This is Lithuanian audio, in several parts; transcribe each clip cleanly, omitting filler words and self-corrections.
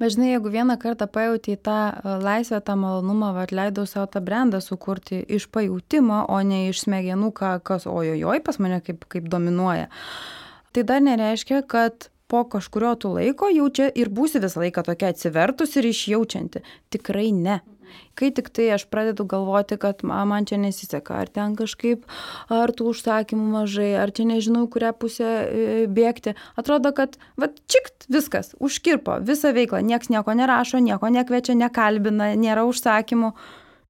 Bet žinai, jeigu vieną kartą pajauti tą laisvę, tą malonumą, leidau savo tą brandą sukurti iš pajūtimo, o ne iš smegenų, kas ojojoj pas mane kaip dominuoja, tai dar nereiškia, kad po kažkurio tų laiko jau čia ir būsi visą laiką tokia atsivertus ir išjaučianti. Tikrai ne. Kai tik tai aš pradedu galvoti, kad man čia nesiseka, ar ten kažkaip, ar tų užsakymų mažai, ar čia nežinau, kurią pusę bėgti, atrodo, kad čikt, viskas, užkirpo visą veiklą, nieks nieko nerašo, nieko nekviečia, nekalbina, nėra užsakymų.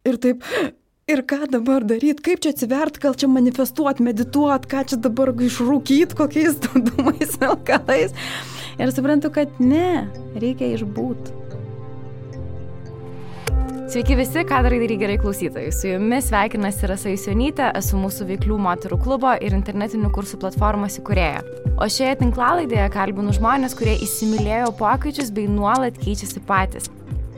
Ir taip, ir ką dabar daryti, kaip čia atsivert, gal čia manifestuot, medituot, ką čia dabar išrūkyt, kokiais dūmais, alkalais. Ir suprantu, kad ne, reikia išbūt. Sveiki visi, ką darai gerai klausytojai. Su jumis sveikinasi Rasa Jusionytė, esu mūsų veiklių moterų klubo ir internetinių kursų platformos įkūrėja. O šioje tinklalaidėje kalbinu žmonės, kurie įsimylėjo pokyčius bei nuolat keičiasi patys.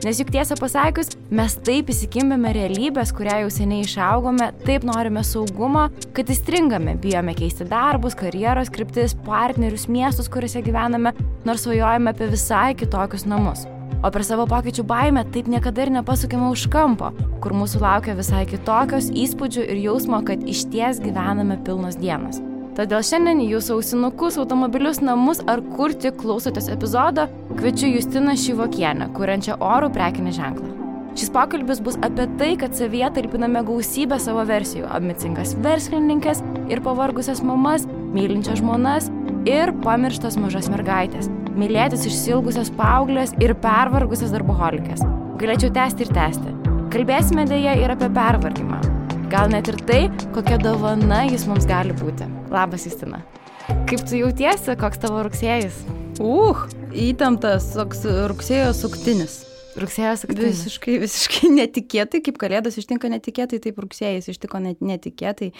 Nes juk tiesą pasakius, mes taip įsikimbėme realybės, kurią jau seniai išaugome, taip norime saugumo, kad įstringame, bijome keisti darbus, karjeros kryptis, partnerius, miestus, kuriuose gyvename, nors svajojame apie visai kitokius namus. O per savo pokyčių baimę taip niekada ir nepasukime už kampo, kur mūsų laukia visai kitokios įspūdžių ir jausmo, kad išties gyvename pilnos dienos. Todėl šiandien į jūsų ausinukus, automobilius, namus ar kur tik klausotės epizodo, kviečiu Justiną Šyvokienę, kuriančią orų prekinį ženklą. Šis pokalbis bus apie tai, kad savyje talpiname gausybę savo versijų, ambicingas verslininkės ir pavargusias mamas, mylinčias žmonas ir pamirštas mažas mergaitės, mylėtis išsilgusias paauglės ir pervargusias darboholikės. Galėčiau tęsti ir tęsti. Kalbėsime dėja ir apie pervargimą. Gal net ir tai, kokia dovana jis mums gali būti. Labas, Justina. Kaip tu jautiesi, koks tavo rugsėjis? Įtemptas toks rugsėjo suktinis. Rugsėjo suktinis. Visiškai netikėtai, kaip kalėdos ištinka netikėtai, taip rugsėjais ištiko netikėtai,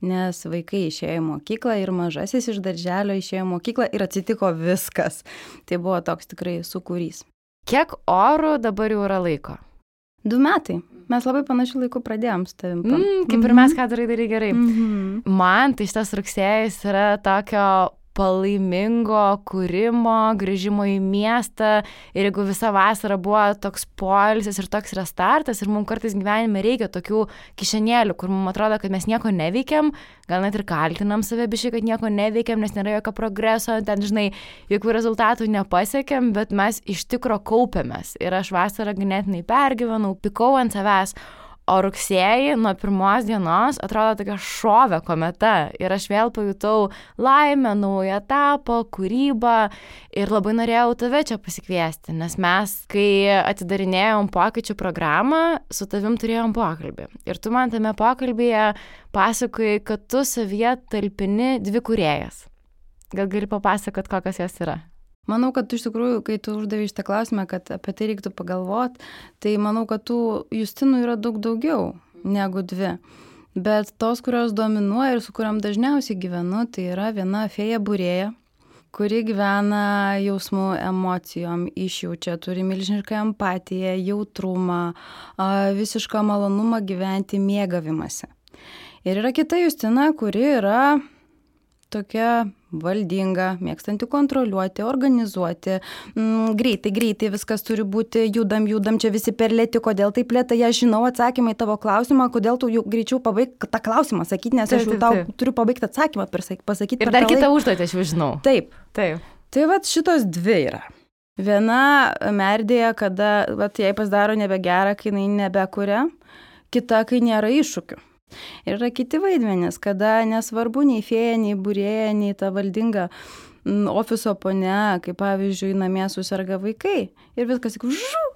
nes vaikai išėjo į mokyklą ir mažasis iš darželio išėjo į mokyklą ir atsitiko viskas. Tai buvo toks tikrai sūkurys. Kiek orų dabar jau yra laiko? 2 metai. Mes labai panašių laikų pradėjom su tavim. Kaip ir mes, ką darai gerai. Man tai šitas rugsėjis yra tokio palaimingo kūrimo, grįžimo į miestą ir jeigu visa vasara buvo toks poilsis ir toks restartas ir mums kartais gyvenime reikia tokių kišenėlių, kur mums atrodo, kad mes nieko neveikiam, gal net ir kaltinam save biškai, kad nieko neveikiam, nes nėra jokio progreso, ten, žinai, jokių rezultatų nepasiekėm, bet mes iš tikro kaupiamės ir aš vasarą ganėtinai pergyvenau, pikau ant savęs. O rugsėjį nuo 1 dienos atrodo tokia šovė kometa ir aš vėl pajutau laimę, naują etapą, kūrybą ir labai norėjau tave čia pasikviesti, nes mes, kai atidarinėjom pokyčių programą, su tavim turėjom pokalbį. Ir tu man tame pokalbyje pasakojai, kad tu savyje talpini 2 kūrėjas. Gal gali papasakot, kokios jos yra? Manau, kad tu iš tikrųjų, kai tu uždavei šitą klausimą, kad apie tai reiktų pagalvoti, tai manau, kad tų Justinų yra daug daugiau negu 2. Bet tos, kurios dominuoja ir su kuriam dažniausiai gyvenu, tai yra viena fėja būrėja, kuri gyvena jausmų, emocijom, išjaučia, turi milžinišką empatiją, jautrumą, visišką malonumą gyventi mėgavimasi. Ir yra kita Justina, kuri yra tokia valdinga, mėgstanti kontroliuoti, organizuoti, greitai viskas turi būti, judam, čia visi per lėti, kodėl taip lėtai, aš žinau atsakymą į tavo klausimą, kodėl tu jau greičiau pabaig tą klausimą sakyti, nes aš jau tau turiu pabaigti atsakymą pasakyti. Ir dar kitą užduotį aš jau žinau. Taip. Tai šitos 2 yra. Viena merdėja, kada jai pasidaro nebegera, kai jinai nebekuria, kita, kai nėra iššūkių. Ir yra kiti vaidmenys, kada nesvarbu nei fėja, nei būrėja, nei ta valdinga ofiso ponia, kaip pavyzdžiui, namie susirga vaikai. Ir viskas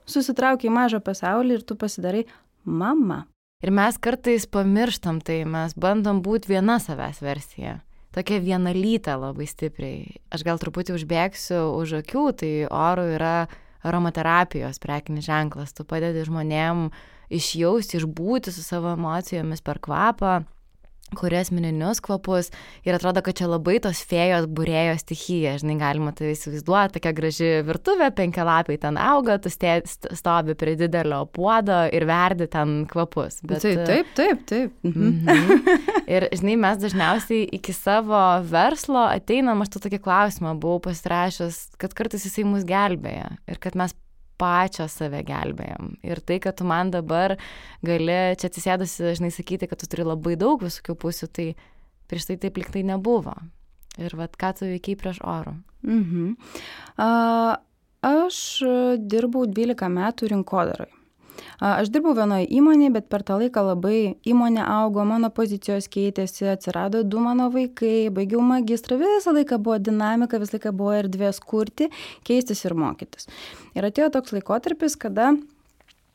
susitraukia į mažą pasaulį ir tu pasidarai mama. Ir mes kartais pamirštam tai, mes bandom būti viena savęs versija. Tokia vienalytė labai stipriai. Aš gal truputį užbėgsiu už akių, tai orų yra aromaterapijos prekinis ženklas. Tu padedi žmonėm išjausti, išbūti su savo emocijomis per kvapą, kuria asmeninius kvapus ir atrodo, kad čia labai tos fėjos būrėjo stichija, žinai, galima tai įsivaizduoti, tokia graži virtuvė, 5 lapai ten auga, tu stovi prie didelio puodo ir verdi ten kvapus. Bet, taip. Ir, žinai, mes dažniausiai iki savo verslo ateinam, aš tu tokį klausimą buvau pasirašęs, kad kartais jisai mus gelbėja ir kad mes pačios save gelbėjom. Ir tai, kad tu man dabar gali čia atsisėdusi, žinai, sakyti, kad tu turi labai daug visokių pusių, tai prieš tai taip liktai nebuvo. Ir vat, ką tu veikiai prieš Orų? Aš dirbau 12 metų rinkodarai. Aš dirbau vienoje įmonėje, bet per tą laiką labai įmonė augo, mano pozicijos keitėsi, atsirado 2 mano vaikai, baigiau magistrą, visą laiką buvo dinamika, visą laiką buvo erdvės kurti, keistis ir mokytis. Ir atėjo toks laikotarpis, kada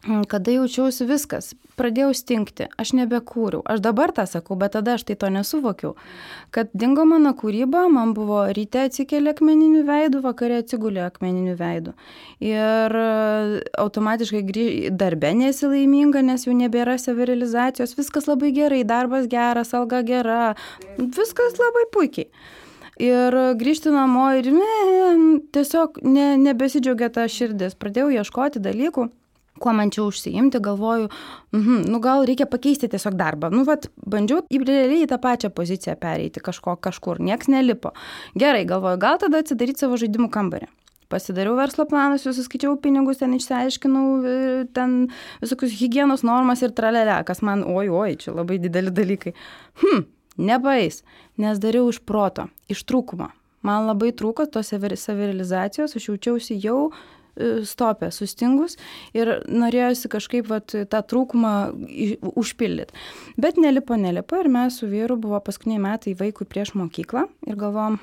jaučiausi viskas, pradėjau stingti, aš nebekūriau. Aš dabar tą sakau, bet tada aš tai to nesuvokiau. Kad dingo mano kūryba, man buvo ryte atsikėlė akmeniniu veidu, vakare atsigulė akmeniniu veidu. Ir automatiškai darbe nesi laiminga, nes jau nebėra savirealizacijos, viskas labai gerai, darbas geras, alga gera, viskas labai puikiai. Ir grįžti namo ir tiesiog nebesidžiaugia ta širdis. Pradėjau ieškoti dalykų, kuo man čia užsiimti, galvoju, gal reikia pakeisti tiesiog darbą. Bandžiau realiai į tą pačią poziciją pereiti kažkur, nieks nelipo. Gerai, galvoju, gal tada atsidaryti savo žaidimų kambarį. Pasidariau verslo planus, susiskaičiau pinigus, ten išsiaiškinau ten visokius higienos normas ir tralelę, kas man, čia labai dideli dalykai. Nepaeis, nes dariau iš proto, iš trūkumo. Man labai trūko tos savirealizacijos, aš jaučiausi jau stopė, sustingus ir norėjosi kažkaip tą trūkumą užpildyti. Bet nelipo ir mes su vyru buvo paskutiniai metai vaikui prieš mokyklą ir galvojom,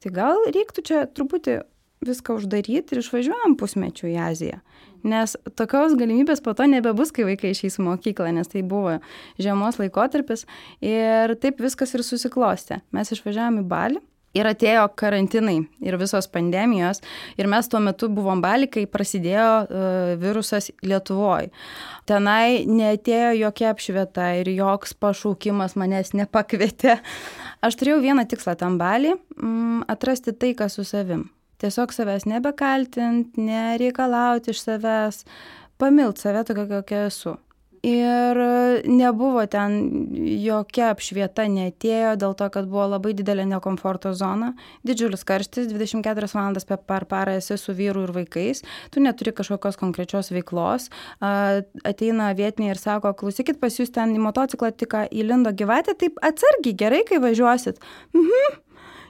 tai gal reiktų čia truputį viską uždaryti ir išvažiuojam pusmečių į Aziją. Nes tokios galimybės po to nebebus, kai vaikai išeis į mokyklą, nes tai buvo žiemos laikotarpis ir taip viskas ir susiklostė. Mes išvažiavom į Balį. Ir atėjo karantinai ir visos pandemijos ir mes tuo metu buvom Baly, kai prasidėjo virusas Lietuvoje. Tenai neatėjo jokia apšvieta ir joks pašaukimas manęs nepakvietė. Aš turėjau vieną tikslą tam Baly – atrasti taiką su savim. Tiesiog savęs nebekaltint, nereikalauti iš savęs, pamilt save tokia, kokia esu. Ir nebuvo ten jokia apšvieta, neatėjo dėl to, kad buvo labai didelė nekomforto zona, didžiulis karštis, 24 valandas per parą esi su vyru ir vaikais, tu neturi kažkokios konkrečios veiklos, ateina vietiniai ir sako, klausykit, pas jūs ten į motociklą tik įlindo gyvatė, taip atsargiai, gerai, kai važiuosit.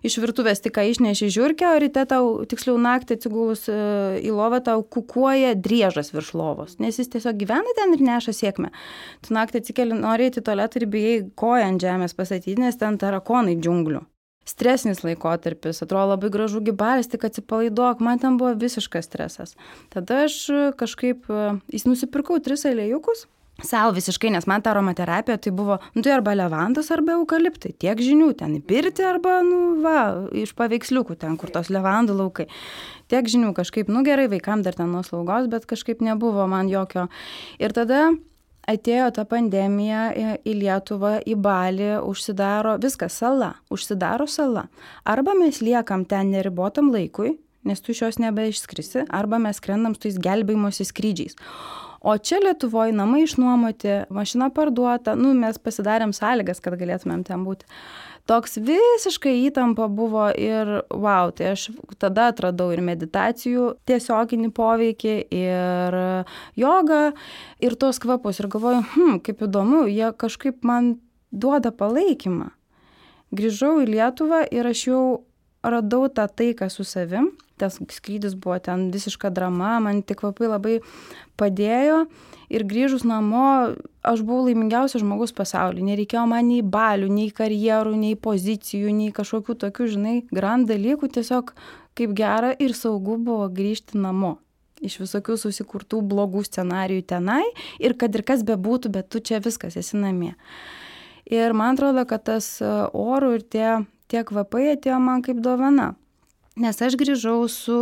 Iš virtuvės tik išneši žiurkę, o ryte tau, tiksliau naktį atsigulus į lovą, tau kukuoja driežas virš lovos, nes jis tiesiog gyvena ten ir neša sėkmę. Tu naktį atsikeli, nori į tualetą ir bijai koją ant žemės pastatyti, nes ten tarakonai džiunglių. Stresinis laikotarpis, atrodo labai gražu Balis, tik atsipalaiduok, man ten buvo visiškas stresas. Tada aš kažkaip nusipirkau 3 aliejukus. Sau visiškai, nes man ta aromaterapija tai buvo, tai arba levandas, arba eukaliptai, tiek žinių, ten į pirtį, arba, iš paveiksliukų ten, kur tos levandų laukai. Tiek žinių kažkaip, gerai, vaikam dar ten nuo slaugos, bet kažkaip nebuvo man jokio. Ir tada atėjo ta pandemija į Lietuvą, į Balį, užsidaro viskas, užsidaro sala. Arba mes liekam ten neribotam laikui, nes tu iš jos nebeišskrisi, arba mes skrendam su tais gelbėjimosi skrydžiais. O čia Lietuvoje namai išnuomoti, mašina parduota, mes pasidarėm sąlygas, kad galėtumėm ten būti. Toks visiškai įtampa buvo ir tai aš tada atradau ir meditacijų tiesioginį poveikį, ir jogą, ir tos kvapus. Ir galvoju, kaip įdomu, jie kažkaip man duoda palaikymą. Grįžau į Lietuvą ir aš jau radau tą taiką su savim. Tas skrydis buvo ten visiška drama, man tik kvapai labai padėjo ir grįžus namo aš buvau laimingiausias žmogus pasaulyje. Nereikėjo man nei balių, nei karjerų, nei pozicijų, nei kažkokių tokių, grand dalykų, tiesiog kaip gera ir saugu buvo grįžti namo. Iš visokių susikurtų blogų scenarijų tenai ir kad ir kas bebūtų, bet tu čia viskas esi namie. Ir man atrodo, kad tas orų ir tie kvapai atėjo man kaip dovana. Nes aš grįžau su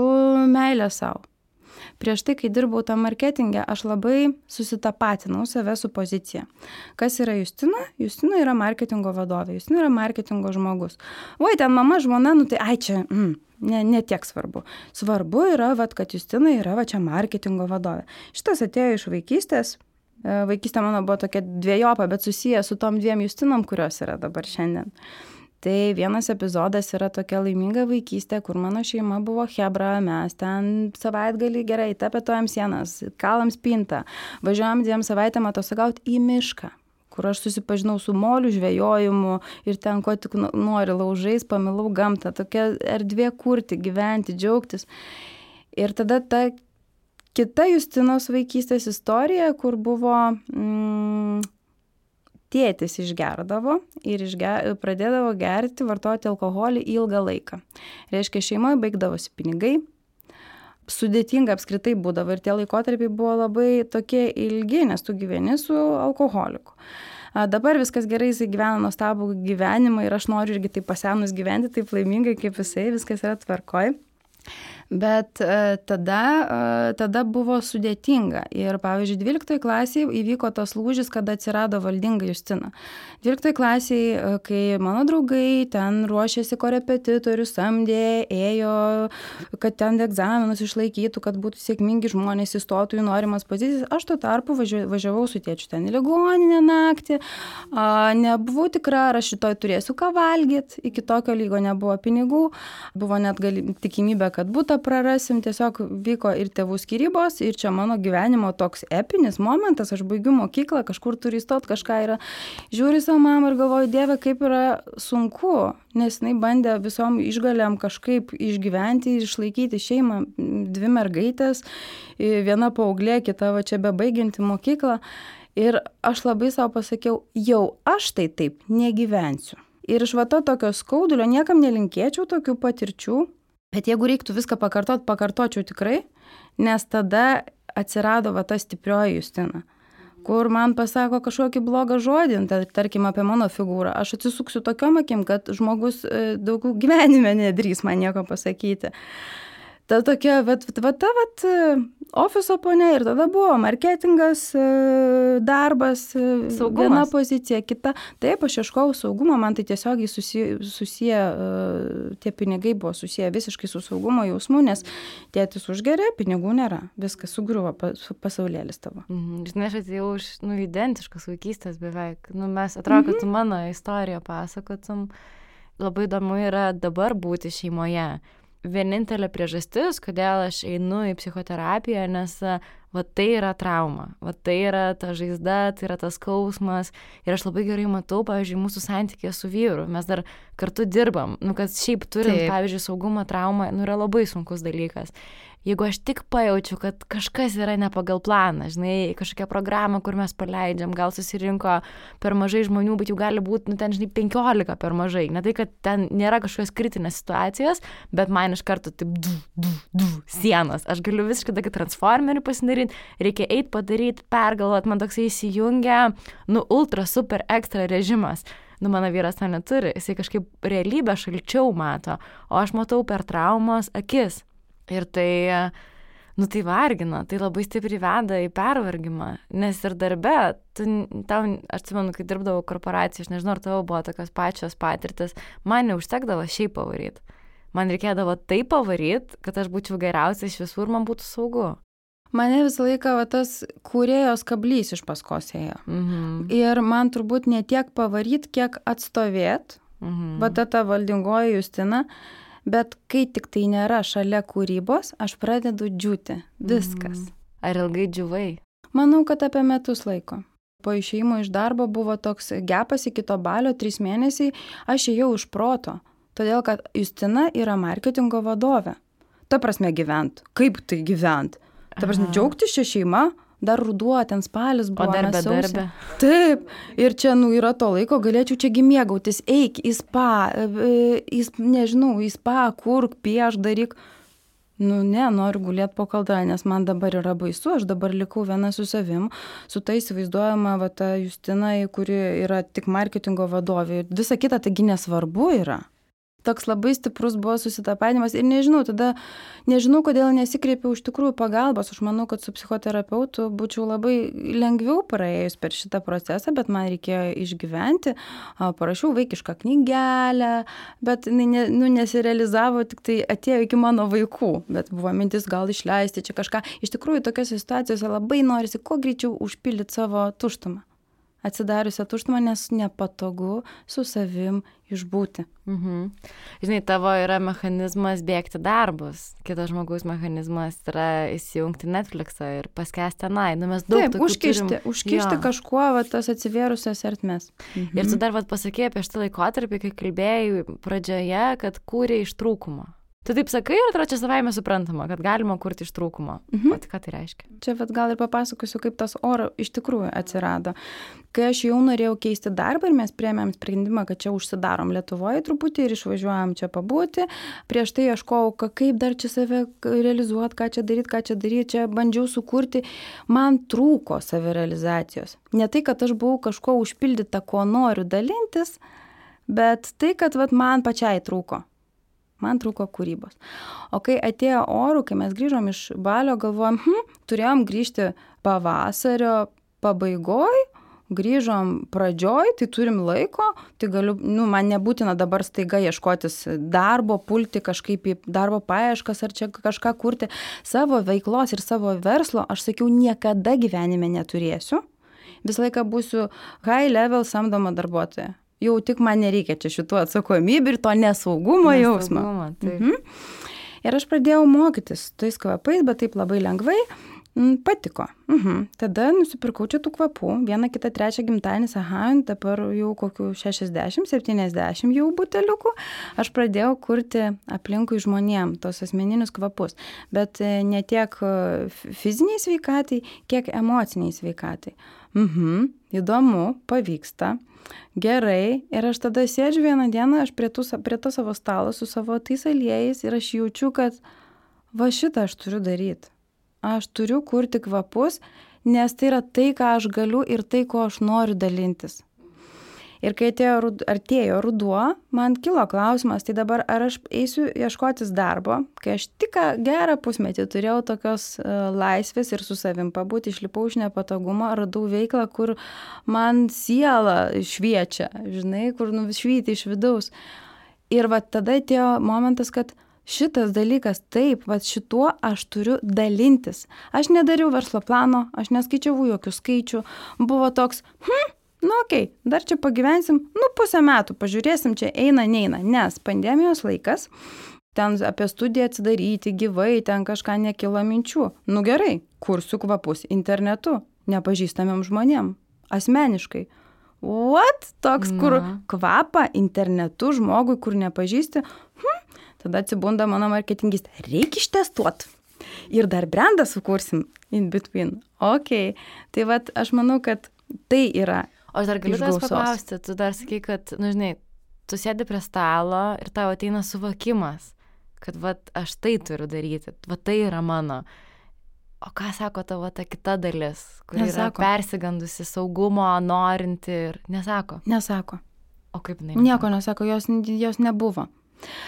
meilė savo. Prieš tai, kai dirbau tam marketinge, aš labai susitapatinau save su pozicija. Kas yra Justina? Justina yra marketingo vadovė, Justina yra marketingo žmogus. Ten mama, žmona, tai čia, ne tiek svarbu. Svarbu yra, kad Justina yra čia marketingo vadovė. Šitas atėjo iš vaikystės. Vaikystė mano buvo tokia dviejopa, bet susiję su tom 2 Justinom, kurios yra dabar šiandien. Tai vienas epizodas yra tokia laiminga vaikystė, kur mano šeima buvo chebra, mes ten savaitgalį gerai, tapetuojam sienas, kalam spintą, važiuojam 2 savaitėm atostogauti į mišką, kur aš susipažinau su molių žvejojimu ir ten ko tik nori laužais, pamilau gamtą, tokia erdvė kurti, gyventi, džiaugtis. Ir tada ta kita Justinos vaikystės istorija, kur buvo tėtis išgerdavo ir pradėdavo gerti, vartoti alkoholį ilgą laiką. Reiškia, šeimoje baigdavosi pinigai, sudėtinga apskritai būdavo ir tie laikotarpiai buvo labai tokie ilgi, nes tu gyveni su alkoholiku. Dabar viskas gerai, jisai gyvena nuostabų gyvenimą ir aš noriu irgi taip pasenus gyventi, taip laimingai kaip jisai, viskas yra tvarkoj. Bet tada buvo sudėtinga ir, pavyzdžiui, 12 klasėje įvyko tas lūžis, kada atsirado valdinga Justina. 12 klasėje, kai mano draugai ten ruošėsi korepetitorių, samdė, ėjo, kad ten egzaminus išlaikytų, kad būtų sėkmingi žmonės, įstotų į norimas pozicijas, aš tuo tarpu važiavau su tėčiu ten į ligoninę naktį, nebuvau tikra, ar aš šitoj turėsiu ką valgyti, iki tokio lygo nebuvo pinigų, buvo net tikimybė, kad būtų prarasim, tiesiog vyko ir tėvų skyrybos, ir čia mano gyvenimo toks epinis momentas, aš baigiu mokyklą, kažkur turiu įstot, kažką yra. Žiūriu savo mamą ir galvoju, Dieve, kaip yra sunku, nes jinai bandė visom išgalėm kažkaip išgyventi ir išlaikyti šeimą, 2 mergaitės, viena paauglė, kita va čia bebaigianti mokyklą. Ir aš labai savo pasakiau, jau aš tai taip negyvensiu. Ir iš va to tokio skaudulio niekam nelinkėčiau tokių patirčių. Bet jeigu reiktų viską pakartočiau tikrai, nes tada atsirado va ta stiprioji Justina, kur man pasako kažkokį blogą žodį, tarkim apie mano figūrą. Aš atsisuksiu tokiom akim, kad žmogus daugiau gyvenime nedrįs man nieko pasakyti. Ta tokia, ofiso ponė ir tada buvo marketingas, darbas, saugumas. Viena pozicija, kita. Taip, aš ieškojau saugumo, man tai tiesiogiai susiję, tie pinigai buvo susiję visiškai su saugumo jausmu, nes tėtis užgeria, pinigų nėra, viskas sugriuvo pasaulėlis tavo. Žinai, aš atėjau iš identiškos vaikystės beveik. Mes atrodo, kad tu mano istoriją pasakotum. Labai įdomu yra dabar būti šeimoje. Vienintelė priežastis, kodėl aš einu į psichoterapiją, nes va tai yra trauma, va tai yra ta žaizda, tai yra tas skausmas ir aš labai gerai matau, pavyzdžiui, mūsų santykė su vyru, mes dar kartu dirbam, kad šiaip turint, pavyzdžiui, saugumo traumą, yra labai sunkus dalykas. Jeigu aš tik pajaučiu, kad kažkas yra ne pagal planą, žinai, kažkokia programa, kur mes paleidžiam, gal susirinko per mažai žmonių, bet jau gali būti, ten, žinai, 15 per mažai. Ne tai, kad ten nėra kažkokios kritinės situacijos, bet man iš karto taip sienos. Aš galiu visiškai tokį transformerį pasidaryti, reikia eiti padaryti, pergalvoti, man toksai įsijungia, ultra, super, ekstra režimas. Mano vyras to neturi, jisai kažkaip realybę šalčiau mato, o aš matau per traumos akis. Ir tai, tai vargina, tai labai stipriai veda į pervargimą, nes ir darbe, aš atsimenu, kai dirbdavau korporacijai, aš nežinau, ar tavo buvo tokios pačios patirtis, man neužtekdavo šiaip pavaryti. Man reikėdavo taip pavaryti, kad aš būčiau geriausia iš visų ir man būtų saugu. Mane visą laiką tas kūrėjos kablys iš paskos ėjo. Ir man turbūt ne tiek pavaryti, kiek atstovėti, ta valdingoji Justina. Bet kai tik tai nėra šalia kūrybos, aš pradedu džiūti. Viskas. Ar ilgai džiūvai? Manau, kad apie metus laiko. Po išėjimo iš darbo buvo toks gepas iki to balio, 3 mėnesiai, aš ėjau iš proto. Todėl, kad Justina yra marketingo vadovė. Ta prasme gyvent. Kaip tai gyvent? Ta prasme džiaugtis šią šeimą. Dar ruduo, ten spalis buvo. O darbe. Taip. Ir čia, yra to laiko, galėčiau čiagi mėgautis. Eik į spa, į spa, kurk, pieš, daryk. Ne, noriu gulėti po kaldra, nes man dabar yra baisu. Aš dabar likau viena su savim, su ta įsivaizduojama ta Justina, kuri yra tik marketingo vadovė. Visa kita taigi nesvarbu yra. Toks labai stiprus buvo susitapatinimas ir nežinau, kodėl nesikreipiau iš tikrųjų pagalbos. Aš manau, kad su psichoterapeutu būčiau labai lengviau praėjus per šitą procesą, bet man reikėjo išgyventi. Parašiau vaikišką knygelę, bet nesirealizavo, tik tai atėjo iki mano vaikų. Bet buvo mintis gal išleisti čia kažką. Iš tikrųjų, tokiose situacijose labai norisi kuo greičiau užpildyti savo tuštumą. atsidariusią tuštumą, nes nepatogu su savim išbūti. Žinai, tavo yra mechanizmas bėgti darbus, kitas žmogaus mechanizmas yra įsijungti Netflixą ir paskęsti tenai. Mes daug tokių užkišti kažkuo tas atsivėrusias ertmes. Ir tu dar pasakėjai apie šitą laikotarpį, kai kalbėjai pradžioje, kad kūrė iš trūkumo. Tu taip sakai, ir atrodo čia savaime suprantama, kad galima kurti iš trūkumo. O tai ką tai reiškia? Čia gal ir papasakosiu, kaip tas oro iš tikrųjų atsirado. Kai aš jau norėjau keisti darbą ir mes priėmėm sprendimą, kad čia užsidarom Lietuvoje truputį ir išvažiuojam čia pabūti, prieš tai ieškojau, kaip dar čia save realizuoti, ką čia daryti, čia bandžiau sukurti, man trūko savirealizacijos. Ne tai, kad aš buvau kažko užpildyta, ko noriu dalintis, bet tai, kad man pačiai trūko. Man trūko kūrybos. O kai atėjo orų, kai mes grįžom iš Balio, galvojom, turėjom grįžti pavasario pabaigoj, grįžom pradžioj, tai turim laiko, tai galiu, man nebūtina dabar staiga ieškotis darbo, pulti kažkaip į darbo paieškas ar čia kažką kurti. Savo veiklos ir savo verslo, aš sakiau, niekada gyvenime neturėsiu. Visą laiką būsiu high level samdoma darbuotoja. Jau tik man nereikia čia šitų atsakomybių ir to nesaugumo jausmo. Ir aš pradėjau mokytis tais kvapais, bet taip labai lengvai. Patiko. Tada nusipirkau čia tų kvapų. 1, 2, 3 gimtadienis, dabar jau kokių 60, 70 jau buteliukų. Aš pradėjau kurti aplinkui žmonėm tos asmeninius kvapus. Bet ne tiek fiziniai sveikatai, kiek emociniai sveikatai. Įdomu, pavyksta. Gerai, ir aš tada sėdžiu vieną dieną, aš prie to savo stalo su savo tais aliejais ir aš jaučiu, kad va šitą aš turiu daryti. Aš turiu kurti kvapus, nes tai yra tai, ką aš galiu ir tai, ko aš noriu dalintis. Ir kai artėjo ruduo, man kilo klausimas, tai dabar ar aš eisiu ieškotis darbo, kai aš tik gerą pusmetį turėjau tokios laisvės ir su savim pabūti, išlipau iš nepatogumo, radau veiklą, kur man siela šviečia, žinai, kur švyti iš vidaus. Ir va tada atėjo momentas, kad šitas dalykas, taip, va šituo aš turiu dalintis. Aš nedariau verslo plano, aš neskaičiavau jokių skaičių, buvo toks, okei, dar čia pagyvensim, 1,5 metų, pažiūrėsim, čia eina, neina, nes pandemijos laikas, ten apie studiją atsidaryti, gyvai, ten kažką nekilo minčių. Gerai, kursiu kvapus internetu, nepažįstamiem žmonėm, asmeniškai. What? Toks, kur kvapą internetu žmogui, kur nepažįsti, tada atsibunda mano marketingistė, reikia ištestuoti. Ir dar brandą sukursim in between. Okay. Tai vat, aš manau, kad tai yra. O aš dar galiu tavęs paklausti, tu dar sakai, kad, žinai, tu sėdi prie stalo ir tau ateina suvokimas, kad aš tai turiu daryti, tai yra mano. O ką sako tavo ta kita dalis, kuri yra persigandusi, saugumo, norinti ir nesako? Nesako. O kaip jinai? Nieko nesako, jos nebuvo.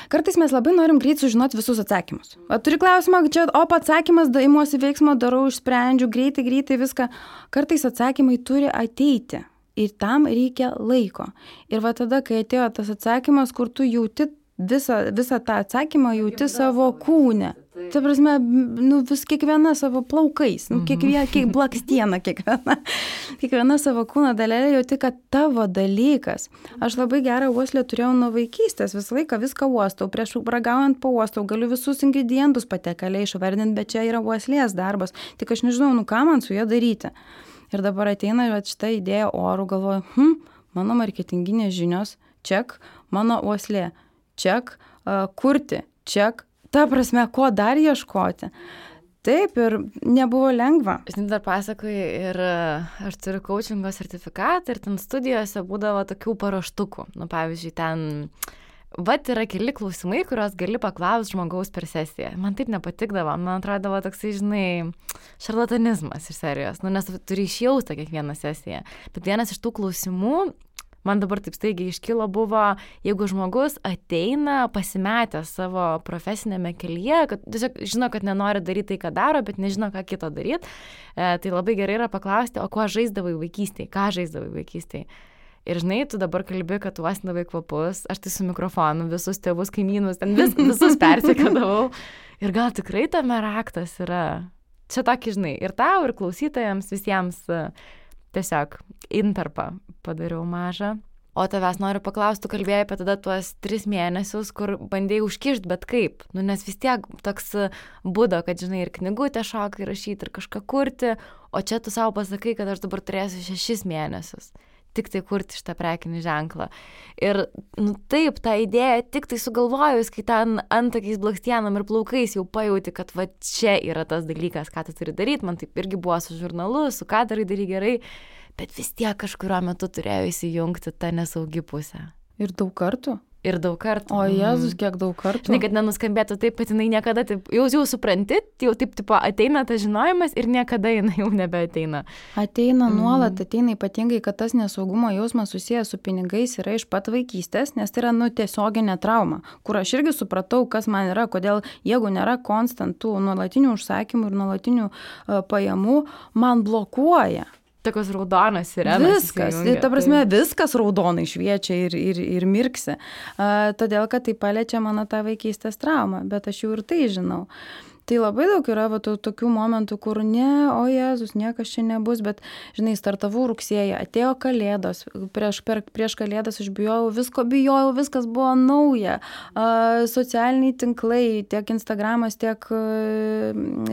Kartais mes labai norim greit sužinoti visus atsakymus. Turi klausimą, čia atsakymas, imuosi veiksmo, darau, išsprendžiu, greitai viską. Kartais atsakymai turi ateiti ir tam reikia laiko. Ir va tada, kai atėjo tas atsakymas, kur tu jauti visą tą atsakymą, jauti savo kūne. Tai prasme, vis kiekviena savo plaukais, kiek blakstiena kiekviena savo kūno dalelė jauti, kad tavo dalykas. Aš labai gerą uoslę turėjau nuo vaikystės, visą laiką viską uostau, prieš ragaujant pauostau, galiu visus ingredientus patekaliai išvardinti, bet čia yra uoslės darbas, tik aš nežinau, ką man su ja daryti. Ir dabar ateina šitą idėją orų, galvoju, mano marketinginės žinios, ček, mano uoslė, ček, kurti, ček. Ta prasme, ko dar ieškoti. Taip, ir nebuvo lengva. Žinai, dar pasakoju, ir aš turiu coachingo sertifikatą ir ten studijose būdavo tokių paruoštukų. Pavyzdžiui, ten, yra keli klausimai, kuriuos gali paklausti žmogaus per sesiją. Man taip nepatikdavo, man atrodavo toksai, žinai, šarlatanizmas iš serijos, nes turi išjaustą kiekvieną sesiją. Bet vienas iš tų klausimų, man dabar taip staigiai iškilo, buvo, jeigu žmogus ateina pasimetęs savo profesinėme kelyje, kad tiesiog žino, kad nenori daryti tai, ką daro, bet nežino, ką kito daryti, tai labai gerai yra paklausti, o kuo žaisdavai vaikystėje, ką žaisdavai vaikystėje. Ir žinai, tu dabar kalbi, kad tu uostindavai kvapus, aš tai su mikrofonu visus tėvus, kaimynus, ten visus persekėdavau. Ir gal tikrai tame raktas yra. Čia tokį, žinai, ir tau, ir klausytojams, visiems tiesiog intarpą padariau mažą. O tavęs noriu paklausti, tu kalbėjai apie tada tuos 3 mėnesius, kur bandėjai užkišti, bet kaip? Nes vis tiek toks būdo, kad, žinai, ir knygutę šokai rašyti, ir kažką kurti, o čia tu savo pasakai, kad aš dabar turėsiu 6 mėnesius. Tik tai kurti šitą prekinį ženklą. Ir, taip, tą idėją tik tai sugalvojus, kai ten antakiais, blakstienom ir plaukais jau pajauti, kad va čia yra tas dalykas, ką tu turi daryti. Man taip irgi buvo su žurnalu, su ką darai gerai. Bet vis tiek kažkurio metu turėjo įsijungti tą nesaugi pusę. Ir daug kartų? Ir daug kartų. O Jėzus, kiek daug kartų. Žinai, kad nenuskambėtų taip, kad jinai niekada taip, jau supranti, jau taip tipo ateina tas žinojimas ir niekada jinai jau nebeateina. Ateina nuolat, ateina ypatingai, kad tas nesaugumo jausmas susijęs su pinigais yra iš pat vaikystės, nes tai yra tiesioginė trauma, kur aš irgi supratau, kas man yra, kodėl jeigu nėra konstantų nuolatinių užsakymų ir nuolatinių pajamų, man blokuoja. Tokios raudonos sirenos. Viskas, ta prasme, viskas raudonai šviečia ir mirksi. Todėl, kad tai paliečia mano tą vaikystės traumą, bet aš jau ir tai žinau. Tai labai daug yra tokių momentų, kur o Jėzus, niekas čia nebus, bet, žinai, startavau rugsėjį, atėjo kalėdos, prieš kalėdas aš bijojau, viskas buvo nauja. Socialiniai tinklai, tiek Instagramas, tiek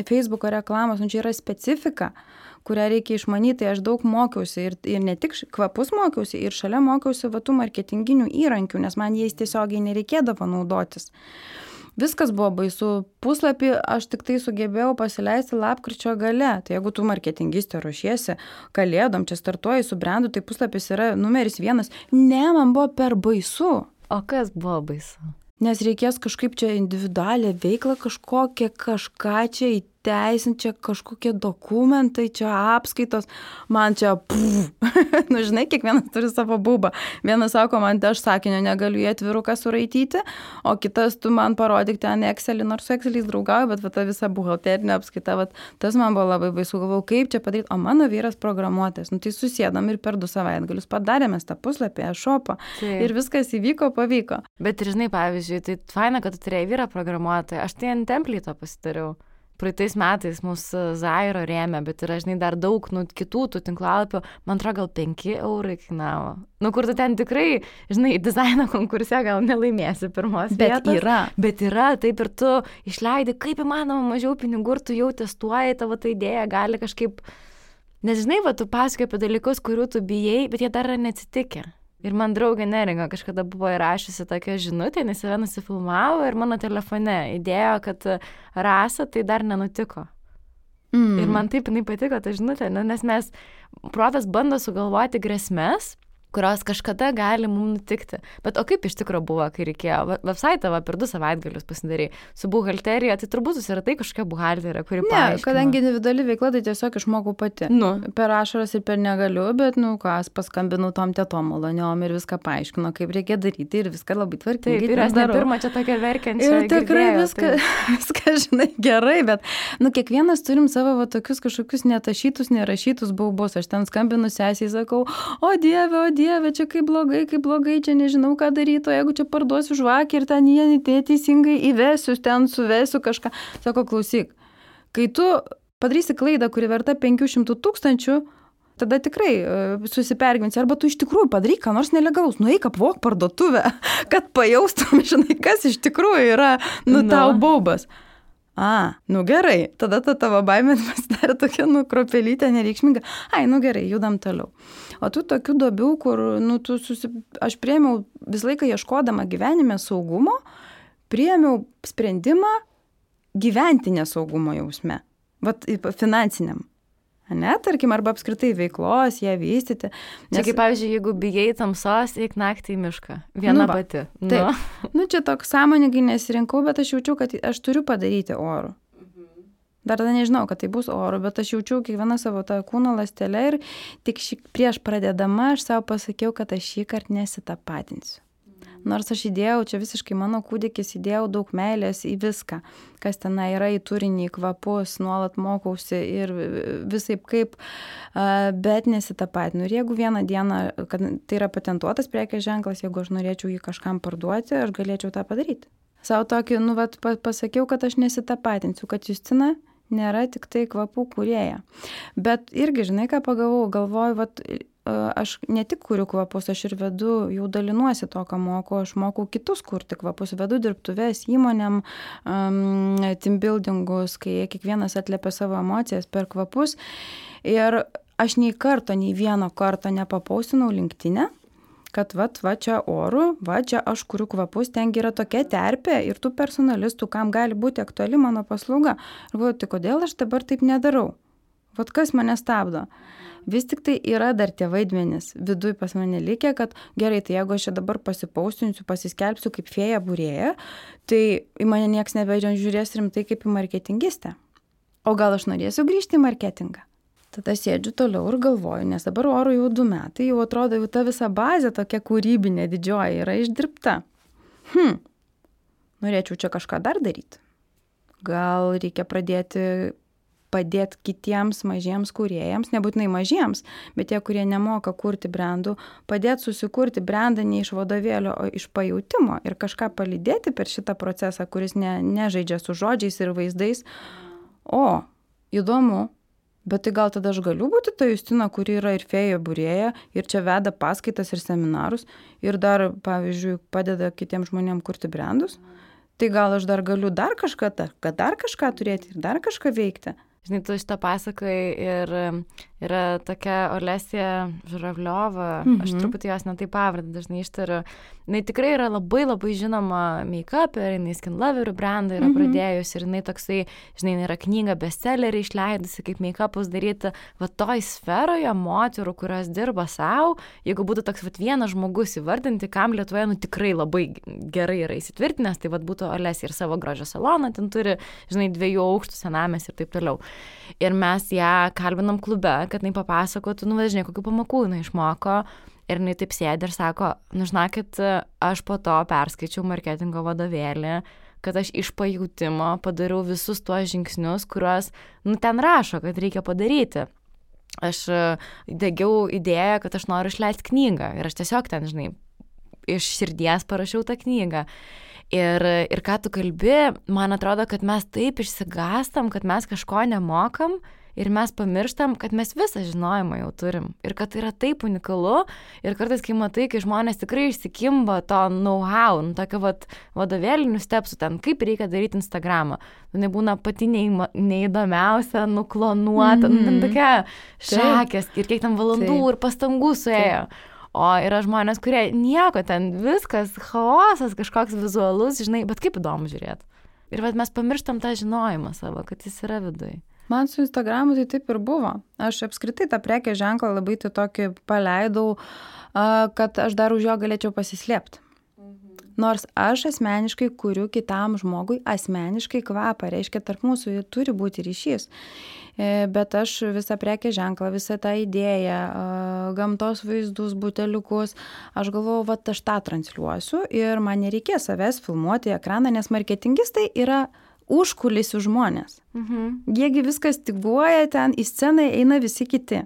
Facebooko reklamos, čia yra specifika, kurią reikia išmanyti. Aš daug mokiausi ir ne tik kvapus mokiausi, ir šalia mokiausi tų marketinginių įrankių, nes man jais tiesiogiai nereikėdavo naudotis. Viskas buvo baisu. Puslapį aš tik tai sugebėjau pasileisti lapkričio gale. Tai jeigu tu marketingistė ruošiesi kalėdom, čia startuoji su brandu, tai puslapis yra numeris 1. Ne, man buvo per baisu. O kas buvo baisu? Nes reikės kažkaip čia individualią veiklą kažką čia įteisinti, čia kažkokie dokumentai, čia apskaitos, man čia žinai, kiekvienas turi savo būbą. Vienas sako, man aš sakinio negaliu į atviruką suraityti, o kitas tu man parodyk ten Excelį, nors su Exceliais draugauju, bet ta visa buhalterinė apskaita, tas man buvo labai baisu, galvojau, kaip čia padaryti, o mano vyras programuotojas, tai susėdam ir per 2 savaitgalius padarėme tą puslapį, e-shopą ir viskas įvyko, pavyko. Bet ir žinai, pavyzdžiui, tai faina, kad tu turėjai vyrą programuotoją, aš tai ant templito pasidariau. Praeitais metais mūsų Zairo rėmė, bet yra, žinai, dar daug kitų tų tinklalapių, man atrodo, gal 5 eurai kainavo. Kur tu ten tikrai, žinai, dizaino konkurse gal nelaimėsi pirmos vietos. Bet yra, taip ir tu išleidi, kaip įmanoma mažiau pinigų ir tu jau testuoji, tavo ta idėja gali kažkaip, nes žinai, tu pasakoji apie dalykus, kurių tu bijai, bet jie dar yra neatsitikę. Ir man draugė Neringa kažkada buvo įrašiusi tokią žinutę, nes save nusifilmavo ir mano telefone įdėjo, kad Rasa tai dar nenutiko. Ir man taip jinai patiko ta žinutė, nes protas bando sugalvoti grėsmes, kurios kažkada gali mums nutikti. Bet o kaip iš tikrųjų buvo, kai reikėjo? Website per 2 savaitgalius pasidarė su buhalterija, tai turbūt susiratai kažkokia buhalterija, kuri paaiškino. Ne, kadangi individuali veikla, tai tiesiog išmokau pati. Per ašaras ir per negaliu, bet, paskambinau tom tetom maloniom ir viską paaiškino, kaip reikia daryti ir viską labai tvarkingai. Taip, ir aš ne pirmą čia tokia verkiančią. Ir tikrai viską, žinai, gerai, bet, kiekvienas turim savo tokius kažkokius netašytus, nerašytus baubus. Aš ten skambinu sesiai, sakau, o Dieve, čia kaip blogai, čia nežinau, ką daryti, o jeigu čia parduosiu žvakį ir ten jie teisingai įvesiu, ten suvesiu kažką. Sako, klausyk, kai tu padarysi klaidą, kuri verta 500 000, tada tikrai susipergyvensi, arba tu iš tikrųjų padaryk ką nors nelegalaus, nueik apvok parduotuvę, kad pajaustum, žinai, kas iš tikrųjų yra, tau baubas. Gerai, tada ta tavo baimė pasidarė tokia, kropelytė nereikšminga. Gerai, judam toliau. O tų tokių duobių, kur, aš priėmiau visą laiką ieškodama gyvenime saugumo, priėmiau sprendimą gyventi nesaugumo jausme, finansiniam. Ne, tarkim, arba apskritai veiklos, ją vystyti. Čia kaip, pavyzdžiui, jeigu bijai tamsos, eik naktį į mišką. Viena pati. Taip. Čia toks sąmoningai nesirinkau, bet aš jaučiu, kad aš turiu padaryti orų. Dar tada nežinau, kad tai bus oro, bet aš jaučiu kiekvieną savo tą kūno ląstelę ir tik prieš pradėdama aš savo pasakiau, kad aš šį kartą nesitapatinsiu. Nors aš įdėjau, čia visiškai mano kūdikis, įdėjau daug meilės į viską, kas ten yra, į turinį, į kvapus, nuolat mokausi ir visaip kaip, bet nesitapatinu. Ir jeigu vieną dieną, kad tai yra patentuotas prekės ženklas, jeigu aš norėčiau jį kažkam parduoti, aš galėčiau tą padaryti. Savo tokį, pasakiau, kad aš nesitapatinsiu, kad Justina nėra tik tai kvapų kūrėja. Bet irgi, žinai, ką galvoju, vat, aš ne tik kuriu kvapus, aš ir vedu, jau dalinuosi to, ką moku, aš mokau kitus kurti kvapus, vedu dirbtuves įmonėm, team buildingus, kai kiekvienas atliepia savo emocijas per kvapus. Ir aš nei vieno karto nepapausinau LinkedIn'e, kad va čia oru, va čia aš kuriu kvapus, ten yra tokia terpė ir tų personalistų, kam gali būti aktuali mano paslauga. Ir galvoju, tai kodėl aš dabar taip nedarau? Vat kas mane stabdo? Vis tik tai yra dar tie vaidmenys viduj pas mane likę, kad gerai, tai jeigu aš čia dabar pasipausinsiu, pasiskelbsiu kaip fėja būrėja, tai į mane nieks nebežiūrės rimtai kaip į marketingistę. O gal aš norėsiu grįžti į marketingą? Tada sėdžiu toliau ir galvoju, nes dabar oru jau 2 metai, jau atrodo, jau ta visa bazė tokia kūrybinė didžioji yra išdirbta. Norėčiau čia kažką dar daryti. Gal reikia padėti kitiems mažiems kūrėjams, nebūtinai mažiems, bet tie, kurie nemoka kurti brandų, padėti susikurti brandą ne iš vadovėlio, o iš pajautimo ir kažką palydėti per šitą procesą, kuris nežaidžia su žodžiais ir vaizdais. O, įdomu. Bet tai gal tada aš galiu būti ta Justina, kuri yra ir fėja būrėja, ir čia veda paskaitas ir seminarus, ir dar, pavyzdžiui, padeda kitiems žmonėms kurti brandus. Tai gal aš dar galiu dar kažką turėti ir dar kažką veikti. Žinai, tu šitą pasakai ir yra tokia Olesija Žuravliova, aš truputį jos netai pavardę dažnai ištariu. Jis tikrai yra labai labai žinoma make-up'er, jinai Skin Loverių brandą yra pradėjusi ir jinai toksai, žinai, yra knyga bestsellerį išleidusi, kaip make-up'us daryti. Va toj sferoje moterų, kurios dirba savo, jeigu būtų toks vienas žmogus įvardinti, kam Lietuvoje tikrai labai gerai yra įsitvirtinęs, tai būtų Olesija ir savo grožio saloną, ten turi, žinai, 2 aukštų senamės ir taip toliau. Ir mes ją kalbinam klube, kad jinai papasakotų, žinai, kokių pamokų jinai išmoko. Ir jinai taip sėdi ir sako, žinokit, aš po to perskaičiau marketingo vadovėlį, kad aš iš pajautimo padariau visus tuos žingsnius, kuriuos ten rašo, kad reikia padaryti. Aš degiau idėją, kad aš noriu išleisti knygą. Ir aš tiesiog ten, žinai, iš širdies parašiau tą knygą. Ir ką tu kalbi, man atrodo, kad mes taip išsigastam, kad mes kažko nemokam ir mes pamirštam, kad mes visą žinojimą jau turim. Ir kad tai yra taip unikalu. Ir kartais, kai matai, kai žmonės tikrai išsikimba to know-how, tokio vadovėlinių stepsų ten, kaip reikia daryti Instagramą. Nebūna pati neįdomiausia, nuklonuota, ten tokia šakės ir kiek ten valandų ir pastangų suėjo. O yra žmonės, kurie nieko ten, viskas, chaosas, kažkoks vizualus, žinai, bet kaip įdomu žiūrėti. Ir mes pamirštam tą žinojimą savo, kad jis yra viduj. Man su Instagramu tai taip ir buvo. Aš apskritai tą prekės ženklą labai tai tokį paleidau, kad aš dar už jo galėčiau pasislėpti. Nors aš asmeniškai kuriu kitam žmogui asmeniškai kvapą, reiškia, tarp mūsų turi būti ryšys. Bet aš visą prekės ženklą, visą tą idėją, gamtos vaizdus, buteliukus, aš galvoju, aš tą transliuosiu ir man nereikės savęs filmuoti į ekraną, nes marketingistai yra užkulisių žmonės. Jiegi viskas styguoja ten, į sceną eina visi kiti.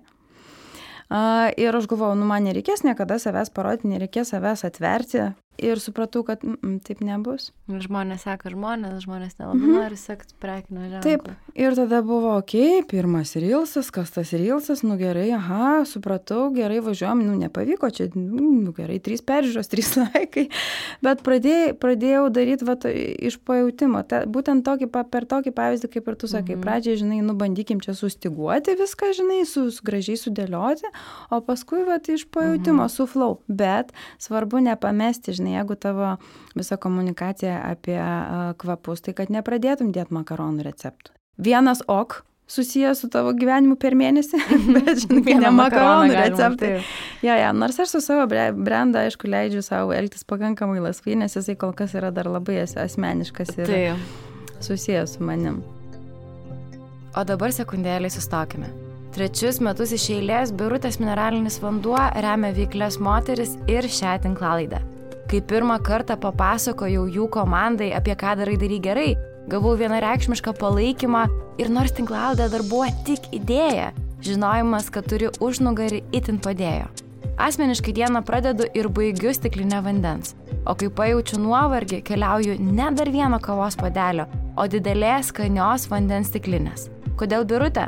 Ir aš galvoju, man nereikės niekada savęs parodyti, nereikės savęs atverti. Ir supratau, kad taip nebus. Žmonės seka žmonės nelabai nori sekti prekinio ženklo. Taip, ir tada buvo, pirmas reelsas, kas tas reelsas, gerai, supratau, gerai važiuojam, nepavyko, čia, gerai, 3 peržiūros, 3 laikai, bet pradėjau daryti iš pajautimo, būtent per tokį pavyzdį, kaip ir tu sakai, pradžiai, žinai, bandykim čia sustiguoti viską, žinai, gražiai sudėlioti, o paskui, iš pajautimo, su flow, bet svarbu nepamesti, žinai, jeigu tavo visa komunikacija apie kvapus, tai kad nepradėtum dėti makaronų receptų. Vienas susijęs su tavo gyvenimu per mėnesį, bet, žinai, ne makaronų receptai. Nors aš su savo brandą, aišku, leidžiu savo elgtis pakankamai laisvai, nes jisai kol kas yra dar labai asmeniškas ir susijęs su manim. O dabar sekundėlį sustokime. 3 metus iš eilės Birutės mineralinis vanduo remia veiklias moteris ir šią tinklalaidę. Kai pirmą kartą papasakojau jų komandai, apie ką darai gerai, gavau vienareikšmišką palaikymą ir nors tinklalaidė dar buvo tik idėja, žinojimas, kad turi užnugarį itin padėjo. Asmeniškai dieną pradedu ir baigiu stiklinę vandens, o kai pajaučiu nuovargį, keliauju ne dar vieno kavos puodelio, o didelės skanios vandens stiklinės. Kodėl birutė?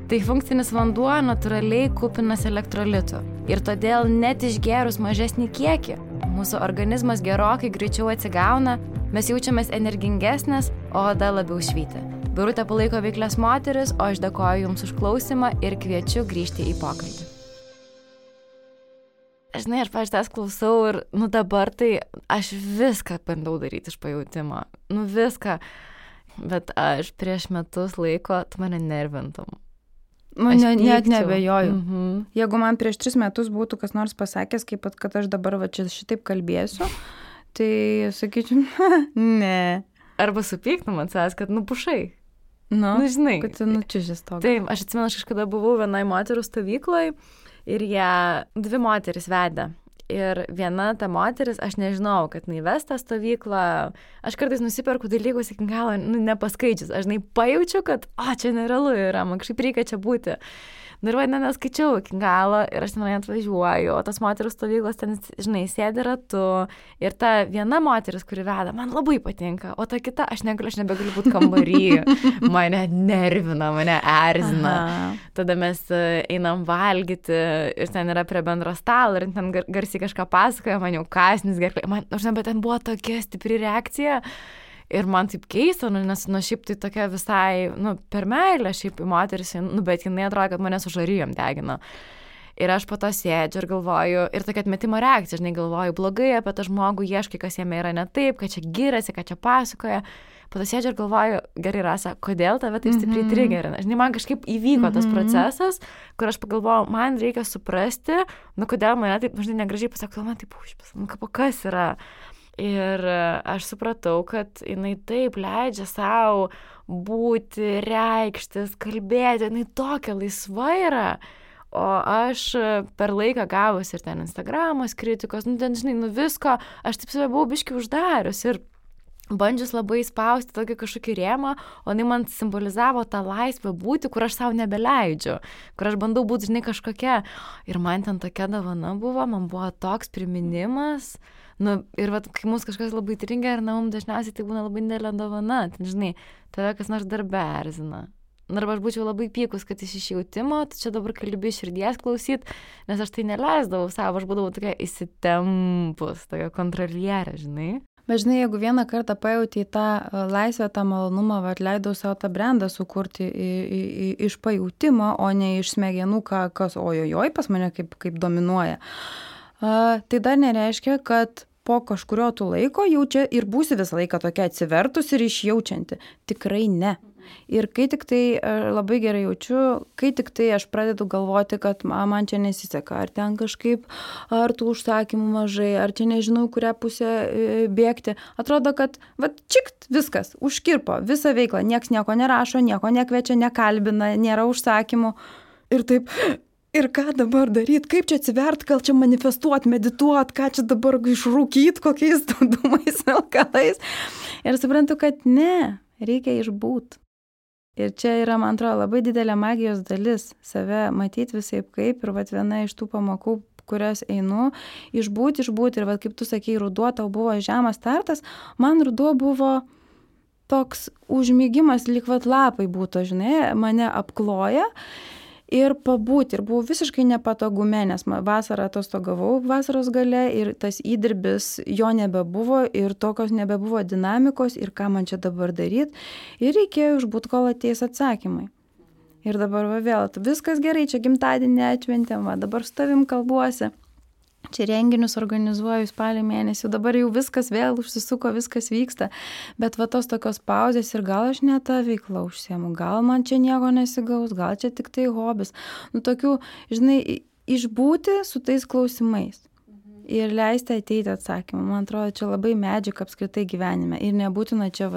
Tai funkcinis vanduo natūraliai kupinas elektrolitų ir todėl net išgėrus mažesnį kiekį, mūsų organizmas gerokai greičiau atsigauna, mes jaučiamės energingesnės, o oda labiau švyti. Birutė palaiko veiklias moteris, o aš dėkoju Jums už klausimą ir kviečiu grįžti į pokalbį. Žinai, aš pavyzdžiui klausau ir, dabar tai aš viską bandau daryti iš pajautimo. Viską. Bet aš prieš metus laiko, tu mane nervintum. Net nebejoju. Jeigu man prieš 3 metus būtų kas nors pasakęs, kad aš dabar čia šitaip kalbėsiu, tai sakyčiau, ne. Arba supyktum ant savęs, kad pušai. Žinai. Kad čia šis toks. Taip, aš atsimenu, aš kažkada buvau vienai moterų stovykloje ir ją 2 moteris vedė. Ir viena ta moteris, aš nežinau, kad ves tą stovyklą, aš kartais nusiperku dalykus iki galo, nepaskaičius, aš pajaučiu, kad, čia nerealu yra, man kažkaip reikia čia būti. Ir neskaičiau iki galo ir aš ten atvažiuoju, o tas moterų stovyklos ten, sėdi ratu ir ta viena moteris, kuri veda, man labai patinka, o ta kita, aš nebegaliu būti kambary, mane nervina, mane erzina. Tada mes einam valgyti ir ten yra prie bendro stalo ir ten garsiai kažką pasakoja, man jau kasnis gerklė, bet ten buvo tokia stipri reakcija. Ir man taip keista, nes šiaip tai tokia visai, per meilę šiaip į moteris, bet jinai atrodo, kad mane su žarijom degina. Ir aš po to sėdžiu ir galvoju, ir tokia atmetimo reakcija, galvoju blogai apie tą žmogų, ieškai, kas jame yra ne taip, kad čia giriasi, kad čia pasakoja. Po to sėdžiu ir galvoju, gerai Rasa, kodėl tave taip stipriai trigerina? Man kažkaip įvyko tas procesas, kur aš pagalvojau, man reikia suprasti, kodėl mane taip, negražiai pasako, man taip užpis, kas yra? Ir aš supratau, kad jinai taip leidžia savo būti, reikštis, kalbėti, jinai tokia laisva yra. O aš per laiką gavus ir ten Instagramos kritikos, visko, aš taip save buvau biškį uždarius ir bandžius labai spausti tokį kažkokį rėmą, o jinai man simbolizavo tą laisvę būti, kur aš savo nebeleidžiu, kur aš bandau būti, kažkokia. Ir man ten tokia dovana buvo, man buvo toks priminimas. Ir kai mūsų kažkas labai trigerina, mums dažniausiai tai būna labai didelė dovana. Tave kas nors darbe erzina. Arba aš būčiau labai pykus, kad iš išjautimo, tai čia dabar kalbi širdies klausyt, nes aš tai neleisdavau savo, aš būdavau tokia įsitempus, tokia kontrolierė, Bet jeigu vieną kartą pajauti tą laisvę, tą malonumą, leidau savo tą brandą sukurti iš pajautimo, o ne iš smegenų, kas ojojoj pas mane kaip dominuoja, tai dar nereiškia, kad po kažkurio tu laiko jaučia ir būsi visą laiką tokia atsivertus ir išjaučianti. Tikrai ne. Ir kai tik tai labai gerai jaučiu, kai tik tai aš pradedu galvoti, kad man čia nesiseka, ar ten kažkaip, ar tų užsakymų mažai, ar čia nežinau, kurią pusę bėgti. Atrodo, kad čikt, viskas, užkirpo visą veiklą, nieks nieko nerašo, nieko nekviečia, nekalbina, nėra užsakymų. Ir taip, ir ką dabar daryti, kaip čia atsivert, gal čia manifestuot, medituot, ką čia dabar išrūkyt, kokiais dūmais, alkalais. Ir suprantu, kad ne, reikia išbūt. Ir čia yra, man atrodo, labai didelė magijos dalis, save matyti visaip kaip. Ir viena iš tų pamokų, kurias einu, išbūti. Ir kaip tu sakei, ruduo tau buvo žemas startas, man ruduo buvo toks užmygimas, lyg lapai būtų, mane apkloja. Ir pabūti. Ir buvau visiškai nepatogume, nes vasarą atostogavau vasaros gale ir tas įdirbis jo nebebuvo ir tokios nebebuvo dinamikos ir ką man čia dabar daryti. Ir reikėjo išbūt, kol ateis atsakymai. Ir dabar vėl, viskas gerai, čia gimtadienį atšventėm, dabar su tavim kalbuosi. Čia renginius organizuoju spalio mėnesį, dabar jau viskas vėl užsisuko, viskas vyksta, bet tos tokios pauzės ir gal aš ne tą veiklą užsiemu, gal man čia nieko nesigaus, gal čia tik tai hobis. Tokių, išbūti su tais klausimais ir leisti ateiti atsakymą. Man atrodo, čia labai medžiaga apskritai gyvenime ir nebūtina čia,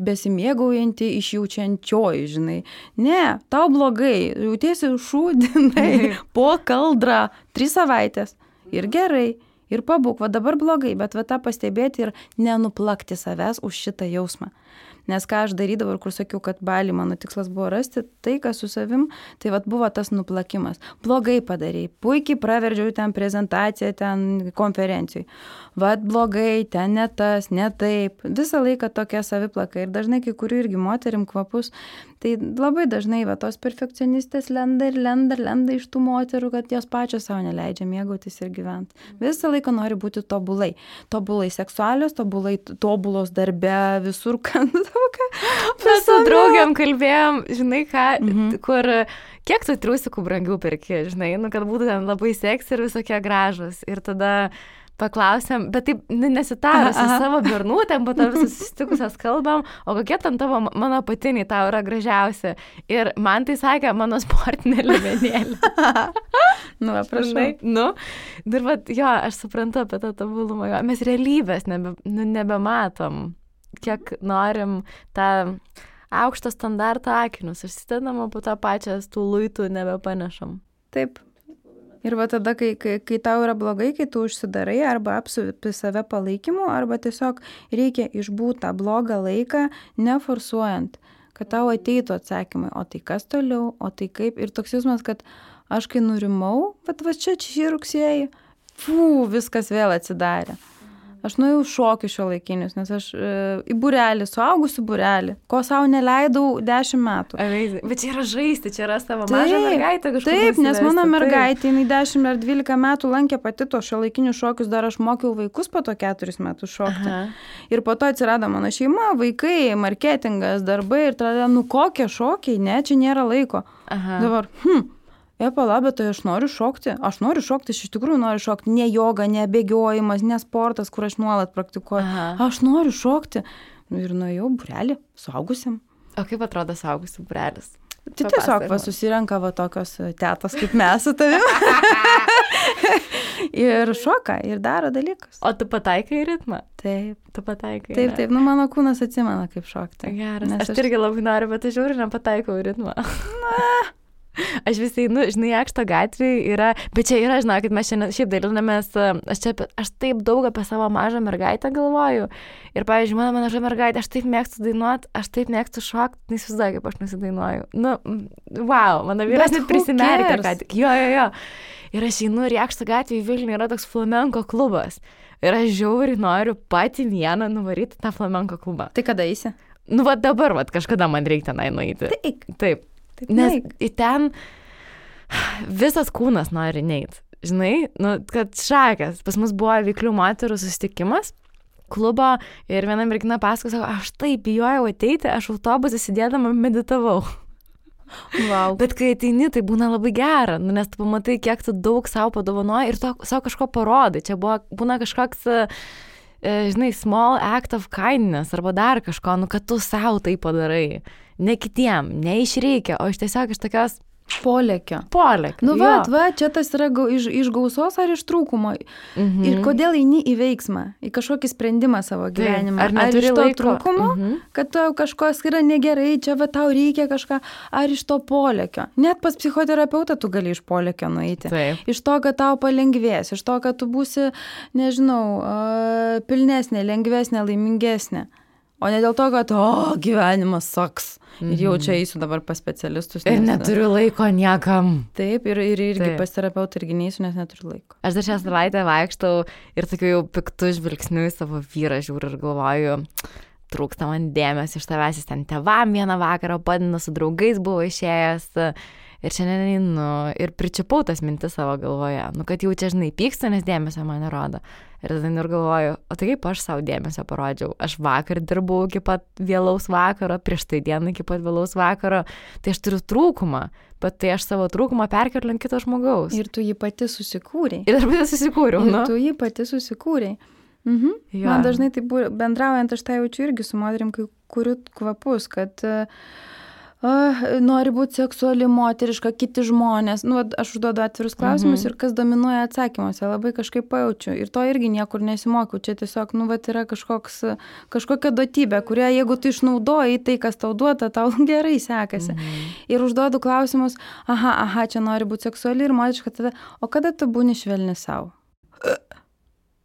besimėgaujanti, išjaučiančioji, Ne, tau blogai, jautiesi šūdinai, po kaldrą 3 savaitės ir gerai, ir pabūk, dabar blogai, bet tą pastebėti ir nenuplakti savęs už šitą jausmą. Nes ką aš darydavau ir kur sakiau, kad Bali mano tikslas buvo rasti taiką su savim, tai buvo tas nuplakimas. Blogai padarei, puikiai praverdžiau ten prezentaciją, ten konferencijai. Blogai, ten ne tas, ne taip. Visą laiką tokia saviplaka ir dažnai kai kurių irgi moterim kvapus, Tai labai dažnai tos perfekcionistės lenda iš tų moterų, kad jos pačios savo neleidžia mėgautis ir gyventi. Visą laiką nori būti tobulai. Tobulai seksualios, tobulos darbe, visur, kad mes su draugiam kalbėjom, žinai ką, kur kiek tu triusikų brangių perki, žinai, kad būtų ten labai seksi ir visokie gražus. Ir tada paklausėm, bet taip nesitarusi savo bernutėm, po to visus susitikusios kalbam, o kokie ten tavo mano apatiniai tau yra gražiausi. Ir man tai sakė mano sportinė liemenėlė. Prašai. Ir jo, aš suprantu apie tą tobulumą. Mes realybės nebematom, kiek norim tą aukštą standartą akinius. Užsidedam, po tą pačią tų luitų nebepanešam. Taip. Ir tada, kai tau yra blogai, kai tu užsidarai arba apsupi save palaikymu, arba tiesiog reikia išbūti tą blogą laiką, neforsuojant, kad tau ateitų atsakymai, o tai kas toliau, o tai kaip. Ir toks jausmas, kad aš kai nurimau, bet čia šį rugsėjį, viskas vėl atsidarė. Aš nuėjau šokių šiuolaikinius, nes aš į būrelį, suaugusių būrelį, ko savo neleidau 10 metų. Bet čia yra žaisti, čia yra savo mažą mergaitę kažkur. Taip, nes mano mergaitė, jinai 10 ar 12 metų lankė pati to šiuolaikinius šokius, dar aš mokiau vaikus po to 4 metus šokti. Ir po to atsirado mano šeima, vaikai, marketingas, darbai ir tada, kokie šokiai, ne, čia nėra laiko. Dabar, bet tai aš noriu šokti, aš iš tikrųjų noriu šokti, ne joga, ne bėgiojimas, ne sportas, kur aš nuolat praktikuoju, aš noriu šokti. Ir nuėjau būrelį, suaugusiam. O kaip atrodo suaugusių būrelis? Tai tiesiog susirenka tokios tetos kaip mes su tavim. Ir šoka, ir daro dalykus. O tu pataikai į ritmą? Taip. Tu pataikai. Taip, mano kūnas atsimena, kaip šokti. Geras, aš irgi labai noriu, bet aš žiūriu, nepataikau į ritmą. Aš visai, žinai, Jakšto gatvėje yra, bet čia yra, žinau, kad mes šiaip dalinamės, aš taip daug apie savo mažą mergaitę galvoju. Ir, pavyzdžiui, mano maža mergaitė, aš taip mėgstu dainuoti, aš taip mėgstu šokti, neįsivaizduoju, kaip aš nusidainuoju. Wow, mano vyras net prisimerkė, kad jo. Ir aš einu ir Jakšto gatvėje į Vilnių yra toks flamenko klubas. Ir aš žiauriai noriu pati vieną nuvaryti tą flamenko klubą. Tai kada eisi? Dabar, kažkada man reikia tenai nueiti. Taip. Nes į ten visas kūnas nori neit. Žinai, kad šakės. Pas mus buvo veiklių moterų susitikimas klubo ir viena mergina pasakojo, sako, aš taip bijojau ateiti, aš autobusą sėdėdama meditavau. Wow. Bet kai ateini, tai būna labai gera, nes tu pamatai, kiek tu daug savo padovanoji ir tu savo kažko parodai. Čia būna kažkoks, žinai, small act of kindness arba dar kažko, kad tu savo tai padarai. Ne kitiem, ne iš reikia, o iš tiesiog iš tokios polėkio. Čia tas yra iš gausos ar iš trūkumo. Ir kodėl eini į veiksmą, į kažkokį sprendimą savo gyvenimą. Ar iš to trūkumo, kad tau kažkas yra negerai, čia tau reikia kažką, ar iš to polėkio. Net pas psichoterapeutą tu gali iš polėkio nueiti. Iš to, kad tau palengvės, iš to, kad tu būsi, nežinau, pilnesnė, lengvesnė, laimingesnė. O ne dėl to, kad, gyvenimas saks. Ir jau čia eisiu dabar pas specialistus. Ir neturiu laiko niekam. Taip, ir irgi pas terapeutą irgi neisiu, nes neturiu laiko. Aš dar šią savaitę vaikštau ir tokiu jau piktu žvilgsniu į savo vyrą žiūriu ir galvoju, trūksta man dėmesio iš tavęs, jis ten tėvam vieną vakarą padino, su draugais buvo išėjęs. Ir šiandien einu ir pričiupau tas mintis savo galvoje. Kad jau čia, žinai, pykstu, nes dėmesio man nerodo. Ir tada ir galvoju, o tai kaip aš savo dėmesio parodžiau? Aš vakar dirbau iki pat vėlaus vakaro, prieš tai dieną iki pat vėlaus vakaro. Tai aš turiu trūkumą, bet tai aš savo trūkumą perkeliu ant kito žmogaus. Ir tu jį pati susikūrei. Ir aš pati susikūriau. Ir tu jį pati susikūrei. Man dažnai tai bendraujant, aš tai jaučiu irgi su moterim, kai kuriu kvapus, kad nori būti seksuali, moteriška, kiti žmonės. Aš užduodu atvirus klausimus ir kas dominuoja atsakymuose, labai kažkaip pajaučiu. Ir to irgi niekur nesimokiau. Čia tiesiog, yra kažkokia duotybė, kurią jeigu tu išnaudoji tai, kas tau duota, tau gerai sekasi. Ir užduodu klausimus, čia nori būti seksuali ir moteriška, tada, o kada tu būni švelni savo?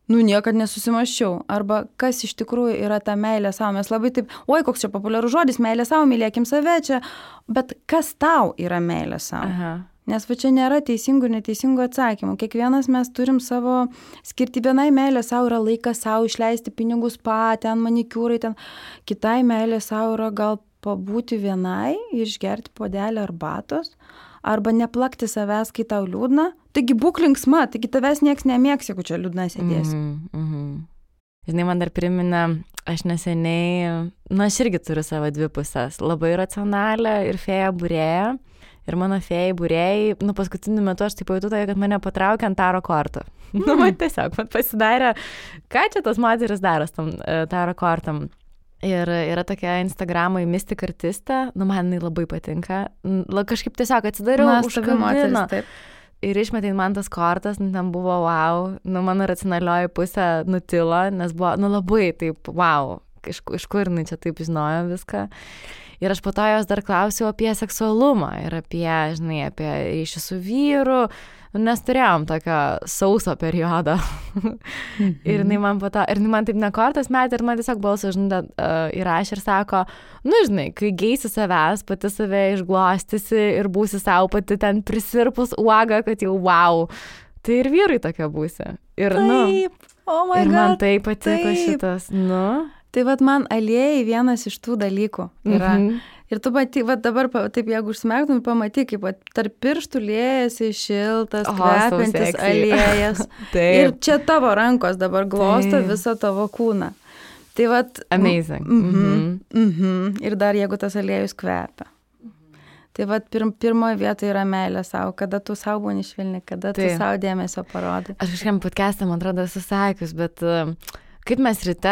Niekad nesusimaščiau. Arba kas iš tikrųjų yra ta meilė savo. Mes labai taip, koks čia populiarus žodis, meilė savo, mylėkim save čia. Bet kas tau yra meilė savo? Nes čia nėra teisingų ir neteisingų atsakymų. Kiekvienas mes turim savo skirti. Vienai meilė savo yra laikas savo išleisti pinigus ten manikiūrai, ten. Kitai meilė savo yra gal pabūti vienai ir išgerti puodelį arbatos, arba neplakti savęs, kai tau liūdna. Taigi būk linksma, taigi tavęs nieks nemėgs, jeigu čia liūdna sėdėsi. Žinai, man dar priminė, aš neseniai, aš irgi turiu savo dvi pusės, labai racionalią ir fėją būrėją. Ir mano fėjai būrėjai, paskutiniu metu aš taip pajutau, kad mane patraukė ant taro kortų. Man tiesiog pasidarė, ką čia tos moteris daro tam taro kortam. Ir yra tokia Instagram'ai Mystic artistė, man jinai labai patinka. Kažkaip tiesiog atsidariau, užkabino. Ir išmetė man tas kortas, ten buvo wow, mano racionalioji pusė nutilo, nes buvo, labai taip wow, iš kur jinai čia taip žinojo viską. Ir aš po to jos dar klausiau apie seksualumą ir apie ryšį su vyru, nes turėjom tokio sauso periodo. Ir jinai man taip nekortas metė ir man tiesiog balsą įrašė ir sako, kai geisi savęs, pati save išglostysi ir būsi savo pati ten prisirpus uoga, kad jau wow, tai ir vyrai tokia būsi. Ir, taip, ir man tai patiko šitas, Tai man aliejai vienas iš tų dalykų yra. Ir tu pati, dabar taip, jeigu užsimerktum, pamatyk, kaip tarp pirštų liejasi šiltas, kvepiantis aliejas. Ir čia tavo rankos dabar glosto visą tavo kūną. Tai amazing. Ir dar jeigu tas aliejus kvepia. Tai pirmoje vietoje yra meilė savo, kada tu savo būni švelni, kada tu savo dėmesio parodai. Aš kažkam podcast'e, man atrodo, esu sakius, bet kaip mes ryte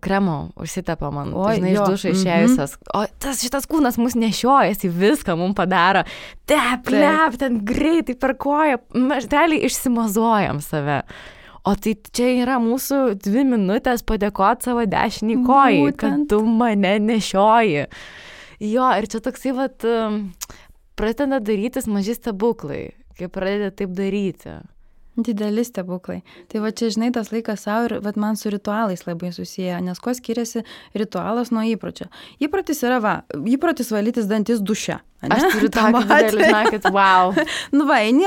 kremo užsitepam man, iš dušo išėjusios, o šitas kūnas mus nešiojasi, viską mums padaro, plep, ten greitai per koją, mes realiai išsimazuojam save. O tai čia yra mūsų 2 minutės padėkoti savo dešinį kojai, kad tu mane nešioji. Jo, ir čia toksai, pradeda darytis maži stebuklai, kai pradeda taip daryti. Dideli stebuklai. Tai čia, žinai, tas laikas savo ir man su ritualais labai susiję, nes kuo skiriasi ritualas nuo įpročio. Įprotis yra, įprotis valytis dantis duše. Aš turiu tokį didelį, žinokit, wow. Eini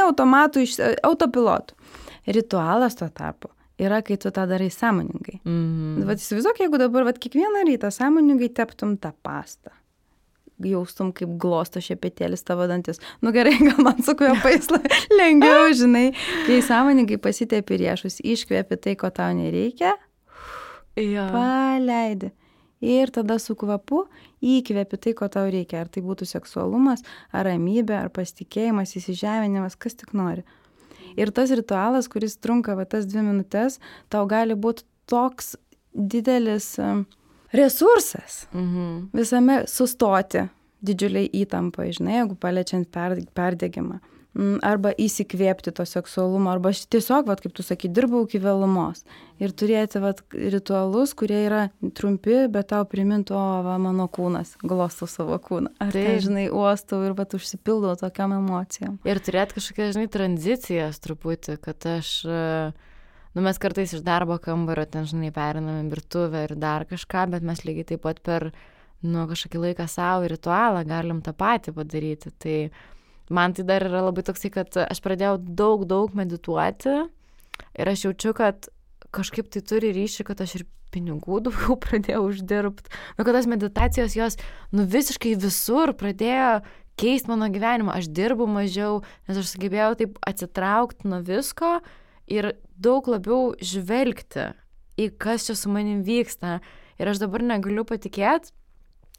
autopilotu. Ritualas tuo tarpu yra, kai tu tą darai sąmoningai. Įsivaizduok, jeigu dabar kiekvieną rytą sąmoningai teptum tą pastą. Jaustum, kaip glosto šepetėlis tavo dantis. Gerai, gal man su kvepais lengviau, žinai. Kai sąmoningai pasitepi riešus, iškvepi tai, ko tau nereikia, paleidi. Ir tada su kvapu įkvepi tai, ko tau reikia. Ar tai būtų seksualumas, ar ramybė, ar pasitikėjimas, įsižeminimas, kas tik nori. Ir tas ritualas, kuris trunka tas 2 minutės, tau gali būti toks didelis resursas visame sustoti didžiuliai įtampai, žinai, jeigu paliečiant perdegimą. Arba įsikvėpti to seksualumo, arba tiesiog, kaip tu sakai, dirbau iki vėlumos. Ir turėti ritualus, kurie yra trumpi, bet tau primintų, mano kūnas, glostau savo kūną. Ar tai, žinai, uostau ir užsipildau tokiam emocijom. Ir turėti kažkokias, žinai, tranzicijas truputį, kad aš... mes kartais iš darbo kambario ten, žinai, periname virtuvę ir dar kažką, bet mes lygiai taip pat per, kažkokį laiką savo ritualą galim tą patį padaryti. Tai man tai dar yra labai toksai, kad aš pradėjau daug medituoti ir aš jaučiu, kad kažkaip tai turi ryšį, kad aš ir pinigų daugiau pradėjau uždirbti. Kad tas meditacijos jos, visiškai visur pradėjo keisti mano gyvenimą. Aš dirbu mažiau, nes aš sugebėjau taip atsitraukti nuo visko ir daug labiau žvelgti į kas čia su manim vyksta. Ir aš dabar negaliu patikėti,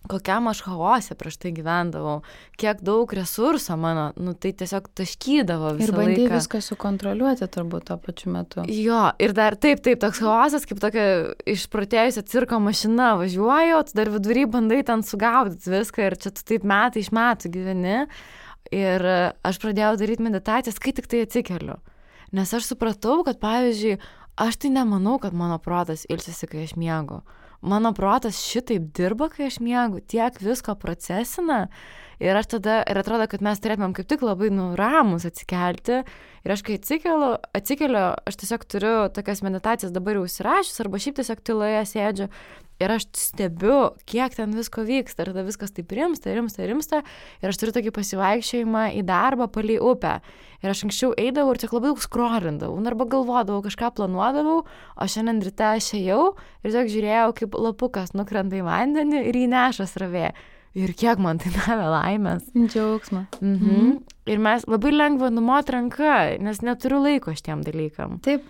kokiam aš chaose prieš tai gyvendavau, kiek daug resurso mano, tai tiesiog taškydavo visą laiką. Ir bandai viską sukontroliuoti turbūt tuo pačiu metu. Jo, ir dar taip, toks chaosas, kaip tokia išprotėjusi cirko mašina važiuoju, tu dar vidury bandai ten sugaudyti viską ir čia tu taip metai iš metų gyveni. Ir aš pradėjau daryti meditacijas, kai tik tai atsikeliu. Nes aš supratau, kad, pavyzdžiui, aš tai nemanau, kad mano protas ilsisi, kai aš miegu. Mano protas šitaip dirba, kai aš miegu, tiek visko procesina. Ir aš tada, ir atrodo, kad mes turėtumėm kaip tik labai ramus atsikelti. Ir aš kai atsikeliu, aš tiesiog turiu tokias meditacijas dabar jau užsirašius, arba šiaip tiesiog tyloje sėdžiu. Ir aš stebiu, kiek ten visko vyksta. Ir tada viskas taip rimsta. Ir aš turiu tokį pasivaikščiojimą į darbą palei upę. Ir aš anksčiau eidavau ir tiek labai daug skrolindavau. Arba galvodavau, kažką planuodavau. O šiandien ryte aš ėjau ir tiesiog žiūrėjau, kaip lapukas nukrenta į vandenį ir jį neša srovė. ir kiek man tai davė laimės. Džiaugsmą. Ir mes labai lengva numot ranka, nes neturiu laiko šitiem dalykam. Taip.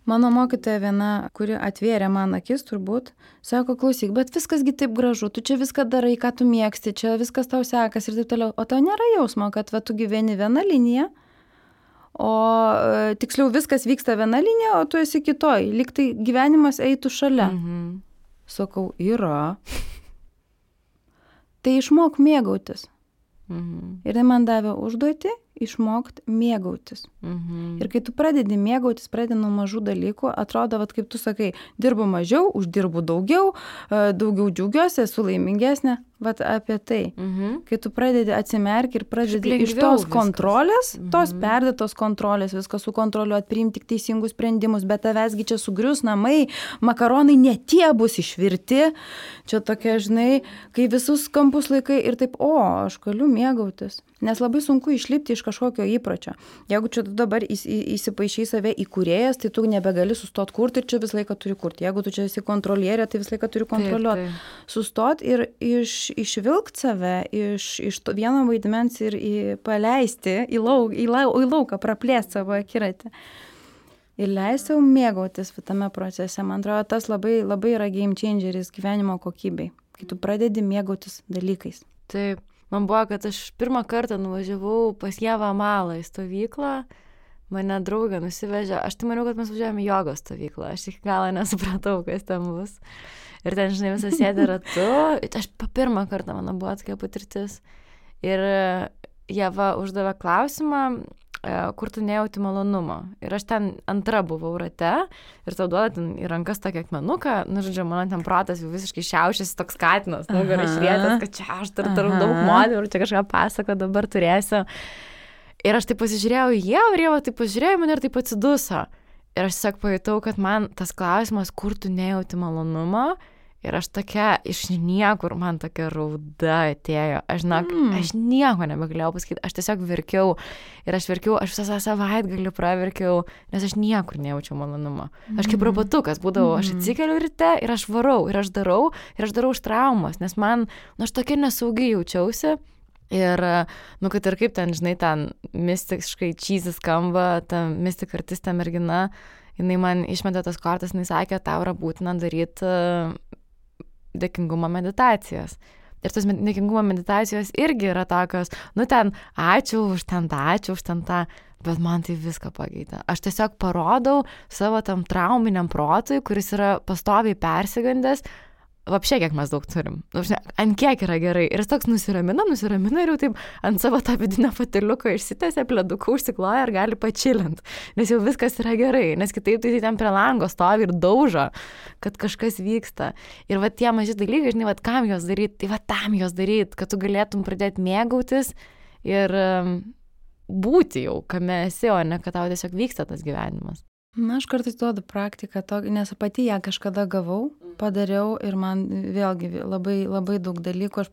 Mano mokytoja viena, kuri atvėrė man akis turbūt, sako, klausyk, bet viskasgi taip gražu, tu čia viską darai, ką tu mėgsti, čia viskas tau sekas ir taip toliau. O tau nėra jausmo, kad tu gyveni viena linija, o tiksliau viskas vyksta viena linija, o tu esi kitoj, lyg tai gyvenimas eitų šalia. Sakau, yra. Tai išmok mėgautis. Ir tai man davė užduoti išmokti mėgautis. Ir kai tu pradedi mėgautis, pradedi nuo mažų dalykų, atrodo, vat, kaip tu sakai, dirbu mažiau, uždirbu daugiau, daugiau džiaugiuosi, esu laimingesnė. Vat apie tai. Kai tu pradedi atsimerki ir pradedi iš tos kontrolės, tos perdėtos kontrolės, viską sukontroliuoti, priimti tik teisingus sprendimus, bet tavęsgi čia sugrius namai, makaronai ne tie bus išvirti. Čia tokia, žinai, kai visus kampus laikai ir taip, aš galiu mėgautis. Nes labai sunku išlipti iš kažkokio įpročio. Jeigu čia tu dabar įsipaišai save į kūrėjas, tai tu nebegali sustot kurti ir čia visą laiką turi kurti. Jeigu tu čia esi kontrolierė, tai visą laiką turi kontroliuoti. Sustot ir išvilkt save iš to vieno vaidmens ir paleisti į lauką, praplėsti savo akiratį. Ir leisti sau mėgautis tame procese. Man atrodo, tas labai, labai yra game changeris gyvenimo kokybei, kai tu pradedi mėgautis dalykais. Taip. Man buvo, kad aš pirmą kartą nuvažiavau pas Ievą Malą į stovyklą, mane draugė nusivežė, aš tai maniau, kad mes važiavome į jogos stovyklą, aš iki galo nesupratau, kas ten bus. Ir ten, žinai, visą sėdė ratu, aš pirmą kartą mano buvo tokia patirtis. Ir Ieva uždavė klausimą, kur tu nejauti malonumo. Ir aš ten antra buvau rate ir tau duoda ten į rankas tokį akmenuką, žodžiu, mano ten protas jau visiškai šiaušiasi toks katinas, nugarą išrietęs, kad čia aš turiu daug modelių ir čia kažką pasako dabar turėsiu. Ir aš taip pasižiūrėjau į Ievą ir Ieva taip pasižiūrėjo mane ir taip atsiduso. Ir aš tiesiog pajutau, kad man tas klausimas, kur tu nejauti malonumo, ir aš tokia, iš niekur man tokia rauda atėjo. Aš nieko nebegalėjau pasakyti, aš tiesiog verkiau. Ir aš visą savaitgalį praverkiau, nes aš niekur nejaučiau malonumo. Aš kaip robotukas būdavau, aš atsikeliu ryte ir aš varau, ir aš darau iš traumos, nes aš tokia nesaugiai jaučiausi. Ir, kad ir kaip ten, žinai, ten mistiškai cheesy skamba, ta mistik artistė mergina, jinai man išmetė tas kortas, jinai sakė, tau yra būtina daryti dėkingumo meditacijas. Ir tos dėkingumo meditacijos irgi yra tokios, ten ačiū už ten tą, bet man tai viską pakeitė. Aš tiesiog parodau savo tam trauminiam protui, kuris yra pastoviai persigandęs, vapšė, kiek mes daug turim. Ant kiek yra gerai. Ir jis toks nusiramina ir jau taip ant savo tą vidinę patiliuką išsitęsia, pleduką užsikloja ir gali pačilint. Nes jau viskas yra gerai. Nes kitaip tai ten prie lango stovi ir daužo, kad kažkas vyksta. Ir tie maži dalykai, žinai, kam jos daryti, tai tam jos daryti, kad tu galėtum pradėti mėgautis ir būti jau, kame esi, o ne kad tau tiesiog vyksta tas gyvenimas. Aš kartais duodu praktiką, nes pati ją kažkada gavau, padariau ir man vėlgi labai, labai daug dalykų.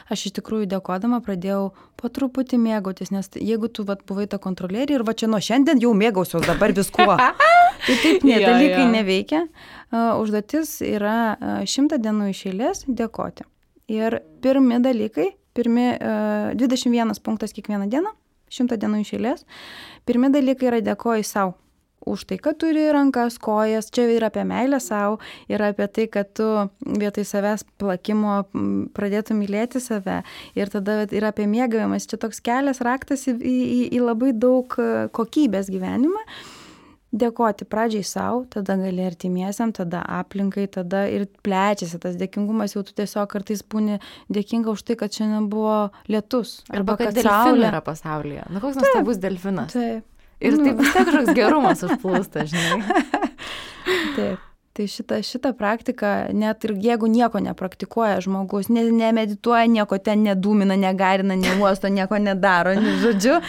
Aš iš tikrųjų dėkodama pradėjau po truputį mėgautis, nes jeigu tu buvai ta kontrolierė ir čia nuo šiandien jau mėgausiuos dabar viskuo. Tai taip dalykai neveikia. Užduotis yra 100 dienų iš eilės dėkoti. Ir pirmi dalykai, 21 punktas kiekvieną dieną, 100 dienų iš eilės, pirmi dalykai yra dėkoji sau. Už tai, kad turi rankas, kojas, čia yra apie meilę savo, yra apie tai, kad tu vietoj savęs plakimo pradėtum mylėti save ir tada yra apie mėgavimas. Čia toks kelias raktas į labai daug kokybės gyvenimą. Dėkoti pradžiai savo, tada gali artimiesiam, tada aplinkai, tada ir plečiasi tas dėkingumas, jau tu tiesiog kartais būni dėkinga už tai, kad šiandien buvo lietus. Arba kad delfinai yra pasaulyje. Koks nuostabus delfinas. Taip. Ir taip vis tiek kažkoks gerumas užplūsta, žinai. Taip. Tai šita praktika, net ir jeigu nieko nepraktikuoja žmogus, nemedituoja, nieko ten nedūmina, negarina, neuosto, nieko nedaro, žodžiu,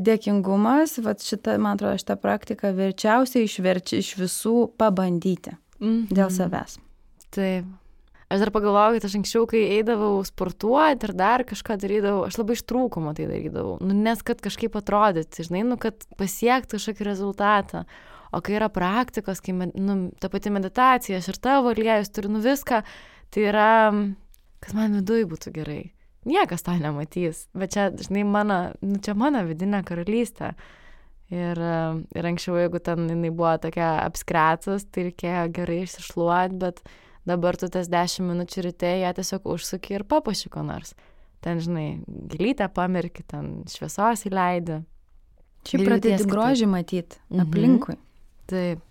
dėkingumas, man atrodo, šitą praktiką verčiausiai išverčia iš visų pabandyti dėl savęs. Taip. Aš dar pagalvojau, kad aš anksčiau, kai eidavau sportuoti ir dar kažką darydavau, aš labai iš trūkumo tai darydavau. Nes kad kažkaip atrodyti, žinai, kad pasiekti kažkokį rezultatą. O kai yra praktikos, kai ta pati meditacija, aš ir tavo aliejus turiu viską, tai yra kad man viduj būtų gerai. Niekas to nematys, bet čia, žinai, čia mano vidinė karalystė. Ir anksčiau, jeigu ten jinai buvo tokia apskretus, tai reikėjo gerai išsišluoti, bet dabar tu tas 10 minučių ryte ją tiesiog užsuki ir papuoši ko nors. Ten, žinai, gėlytę pamerki, ten šviesos įleidi. Šiaip pradėti grožį matyti aplinkui. Taip.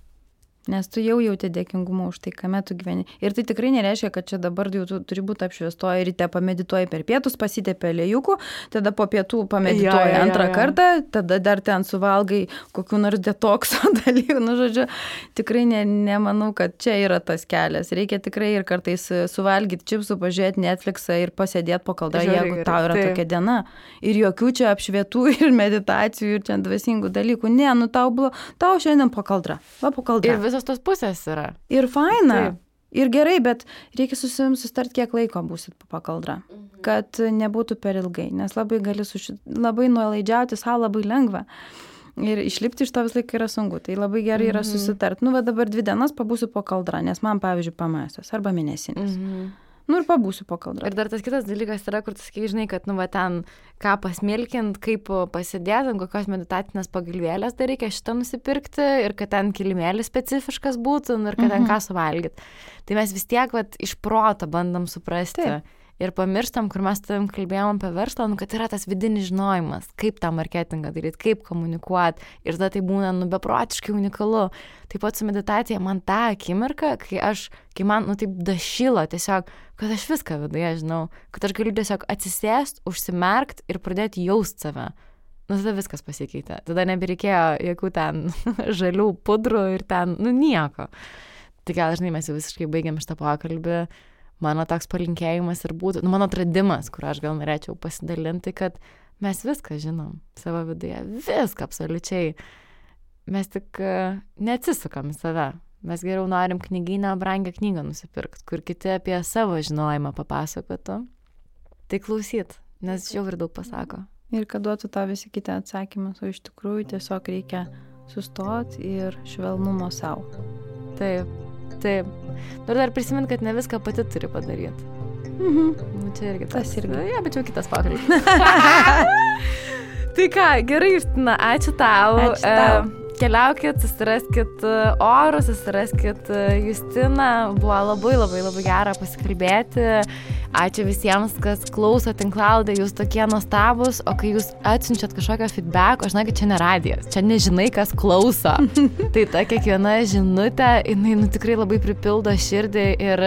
Nes tu jau jauti dėkingumą už tai, kame tu gyveni. Ir tai tikrai nereiškia, kad čia dabar jau tu turi būti apšviestoji, ryte pamedituoji per pietus, pasitepė aliejukų, tada po pietų pamedituoji antrą kartą, tada dar ten suvalgai kokių nors detokso dalykų. Nu, žodžiu, tikrai nemanau, kad čia yra tas kelias. Reikia tikrai ir kartais suvalgyti čipsų, pažiūrėti Netflixą ir pasėdėti po kaldrą, jeigu tau yra tokia diena. Ir jokių čia apšvietų ir meditacijų ir čia dvasingų dalykų. Ne, nu tau šiandien po kaldrą. Va po kaldrą. Ir visos tos pusės yra. Ir faina. Taip. Ir gerai, bet reikia su savim susitart, kiek laiko būsit po kaldrą. Kad nebūtų per ilgai. Nes labai gali labai nuolaidžiauti savo labai lengva. Ir išlipti iš to vis laik yra sunku. Tai labai gerai yra susitart. Nu, va dabar 2 dienas pabūsiu po kaldrą, nes man, pavyzdžiui, PMS arba mėnesinės. Nu ir pabūsiu po kaldrą. Ir dar tas kitas dalykas yra, kur tu sakai, žinai, kad, nu, va ten ką pasmilkint, kaip pasidėti, kokios meditacinės pagalvėlės dar reikia šitą nusipirkti ir kad ten kilimėlis specifiškas būtų ir kad ten ką suvalgyti. Tai mes vis tiek, va, iš proto bandom suprasti. Taip. Ir pamirštam, kur mes tavim kalbėjom apie verslą, nu, kad yra tas vidinis žinojimas, kaip tą marketingą daryti, kaip komunikuoti. Ir tada tai būna, nu, beprotiškai unikalu. Taip pat su meditacija man tą akimirką, kai man, nu, taip dašilo tiesiog, kad aš viską viduje žinau, kad aš galiu tiesiog atsisėst, užsimerkt ir pradėti jaust save. Nu, tada viskas pasikeitė. Tada nebereikėjo jokių ten žalių pudrų ir ten, nu, nieko. Tai gal, žinai, mes jau visiškai baigiam šitą pokalbį. Mano toks palinkėjimas ir būtų, nu, mano atradimas, kur aš gal norėčiau pasidalinti, kad mes viską žinom savo viduje, viską absoliučiai. Mes tik neatsisukam į save. Mes geriau norim knygyną, brangią knygą nusipirkti, kur kiti apie savo žinojimą papasakotų. Tai klausyt, nes jau ir daug pasako. Ir kad duotų tą visi kiti atsakymus, o iš tikrųjų tiesiog reikia sustoti ir švelnumo savo. Taip. Taip. Ir dar prisimint, kad ne viską pati turi padaryti. Nu, čia irgi tas irgi. Ja, bet jau kitas pokalbis. Tai ką, gerai, Justina, ačiū tau. Ačiū tau. Keliaukit, susiraskit orus, susiraskit Justiną. Buvo labai, labai, labai gera pasikalbėti. Ačiū visiems, kas klauso tinklalaidę, jūs tokie nuostabus, o kai jūs atsiunčiat kažkokio feedback, aš žinau, kad čia ne radijas, čia nežinai, kas klauso. Tai ta kiekviena žinutė, jinai, nu, tikrai labai pripildo širdį ir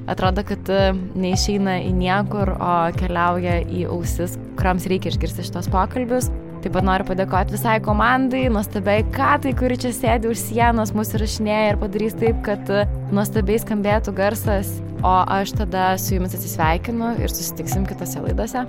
atrodo, kad neišeina į niekur, o keliauja į ausis, kuriams reikia išgirsti šitos pokalbius. Taip pat noriu padėkoti visai komandai, nuostabiai Katai, kuri čia sėdi už sienos, mus įrašinėja ir padarys taip, kad nuostabiai skambėtų garsas. O aš tada su jumis atsisveikinu ir susitiksim kitose laidose.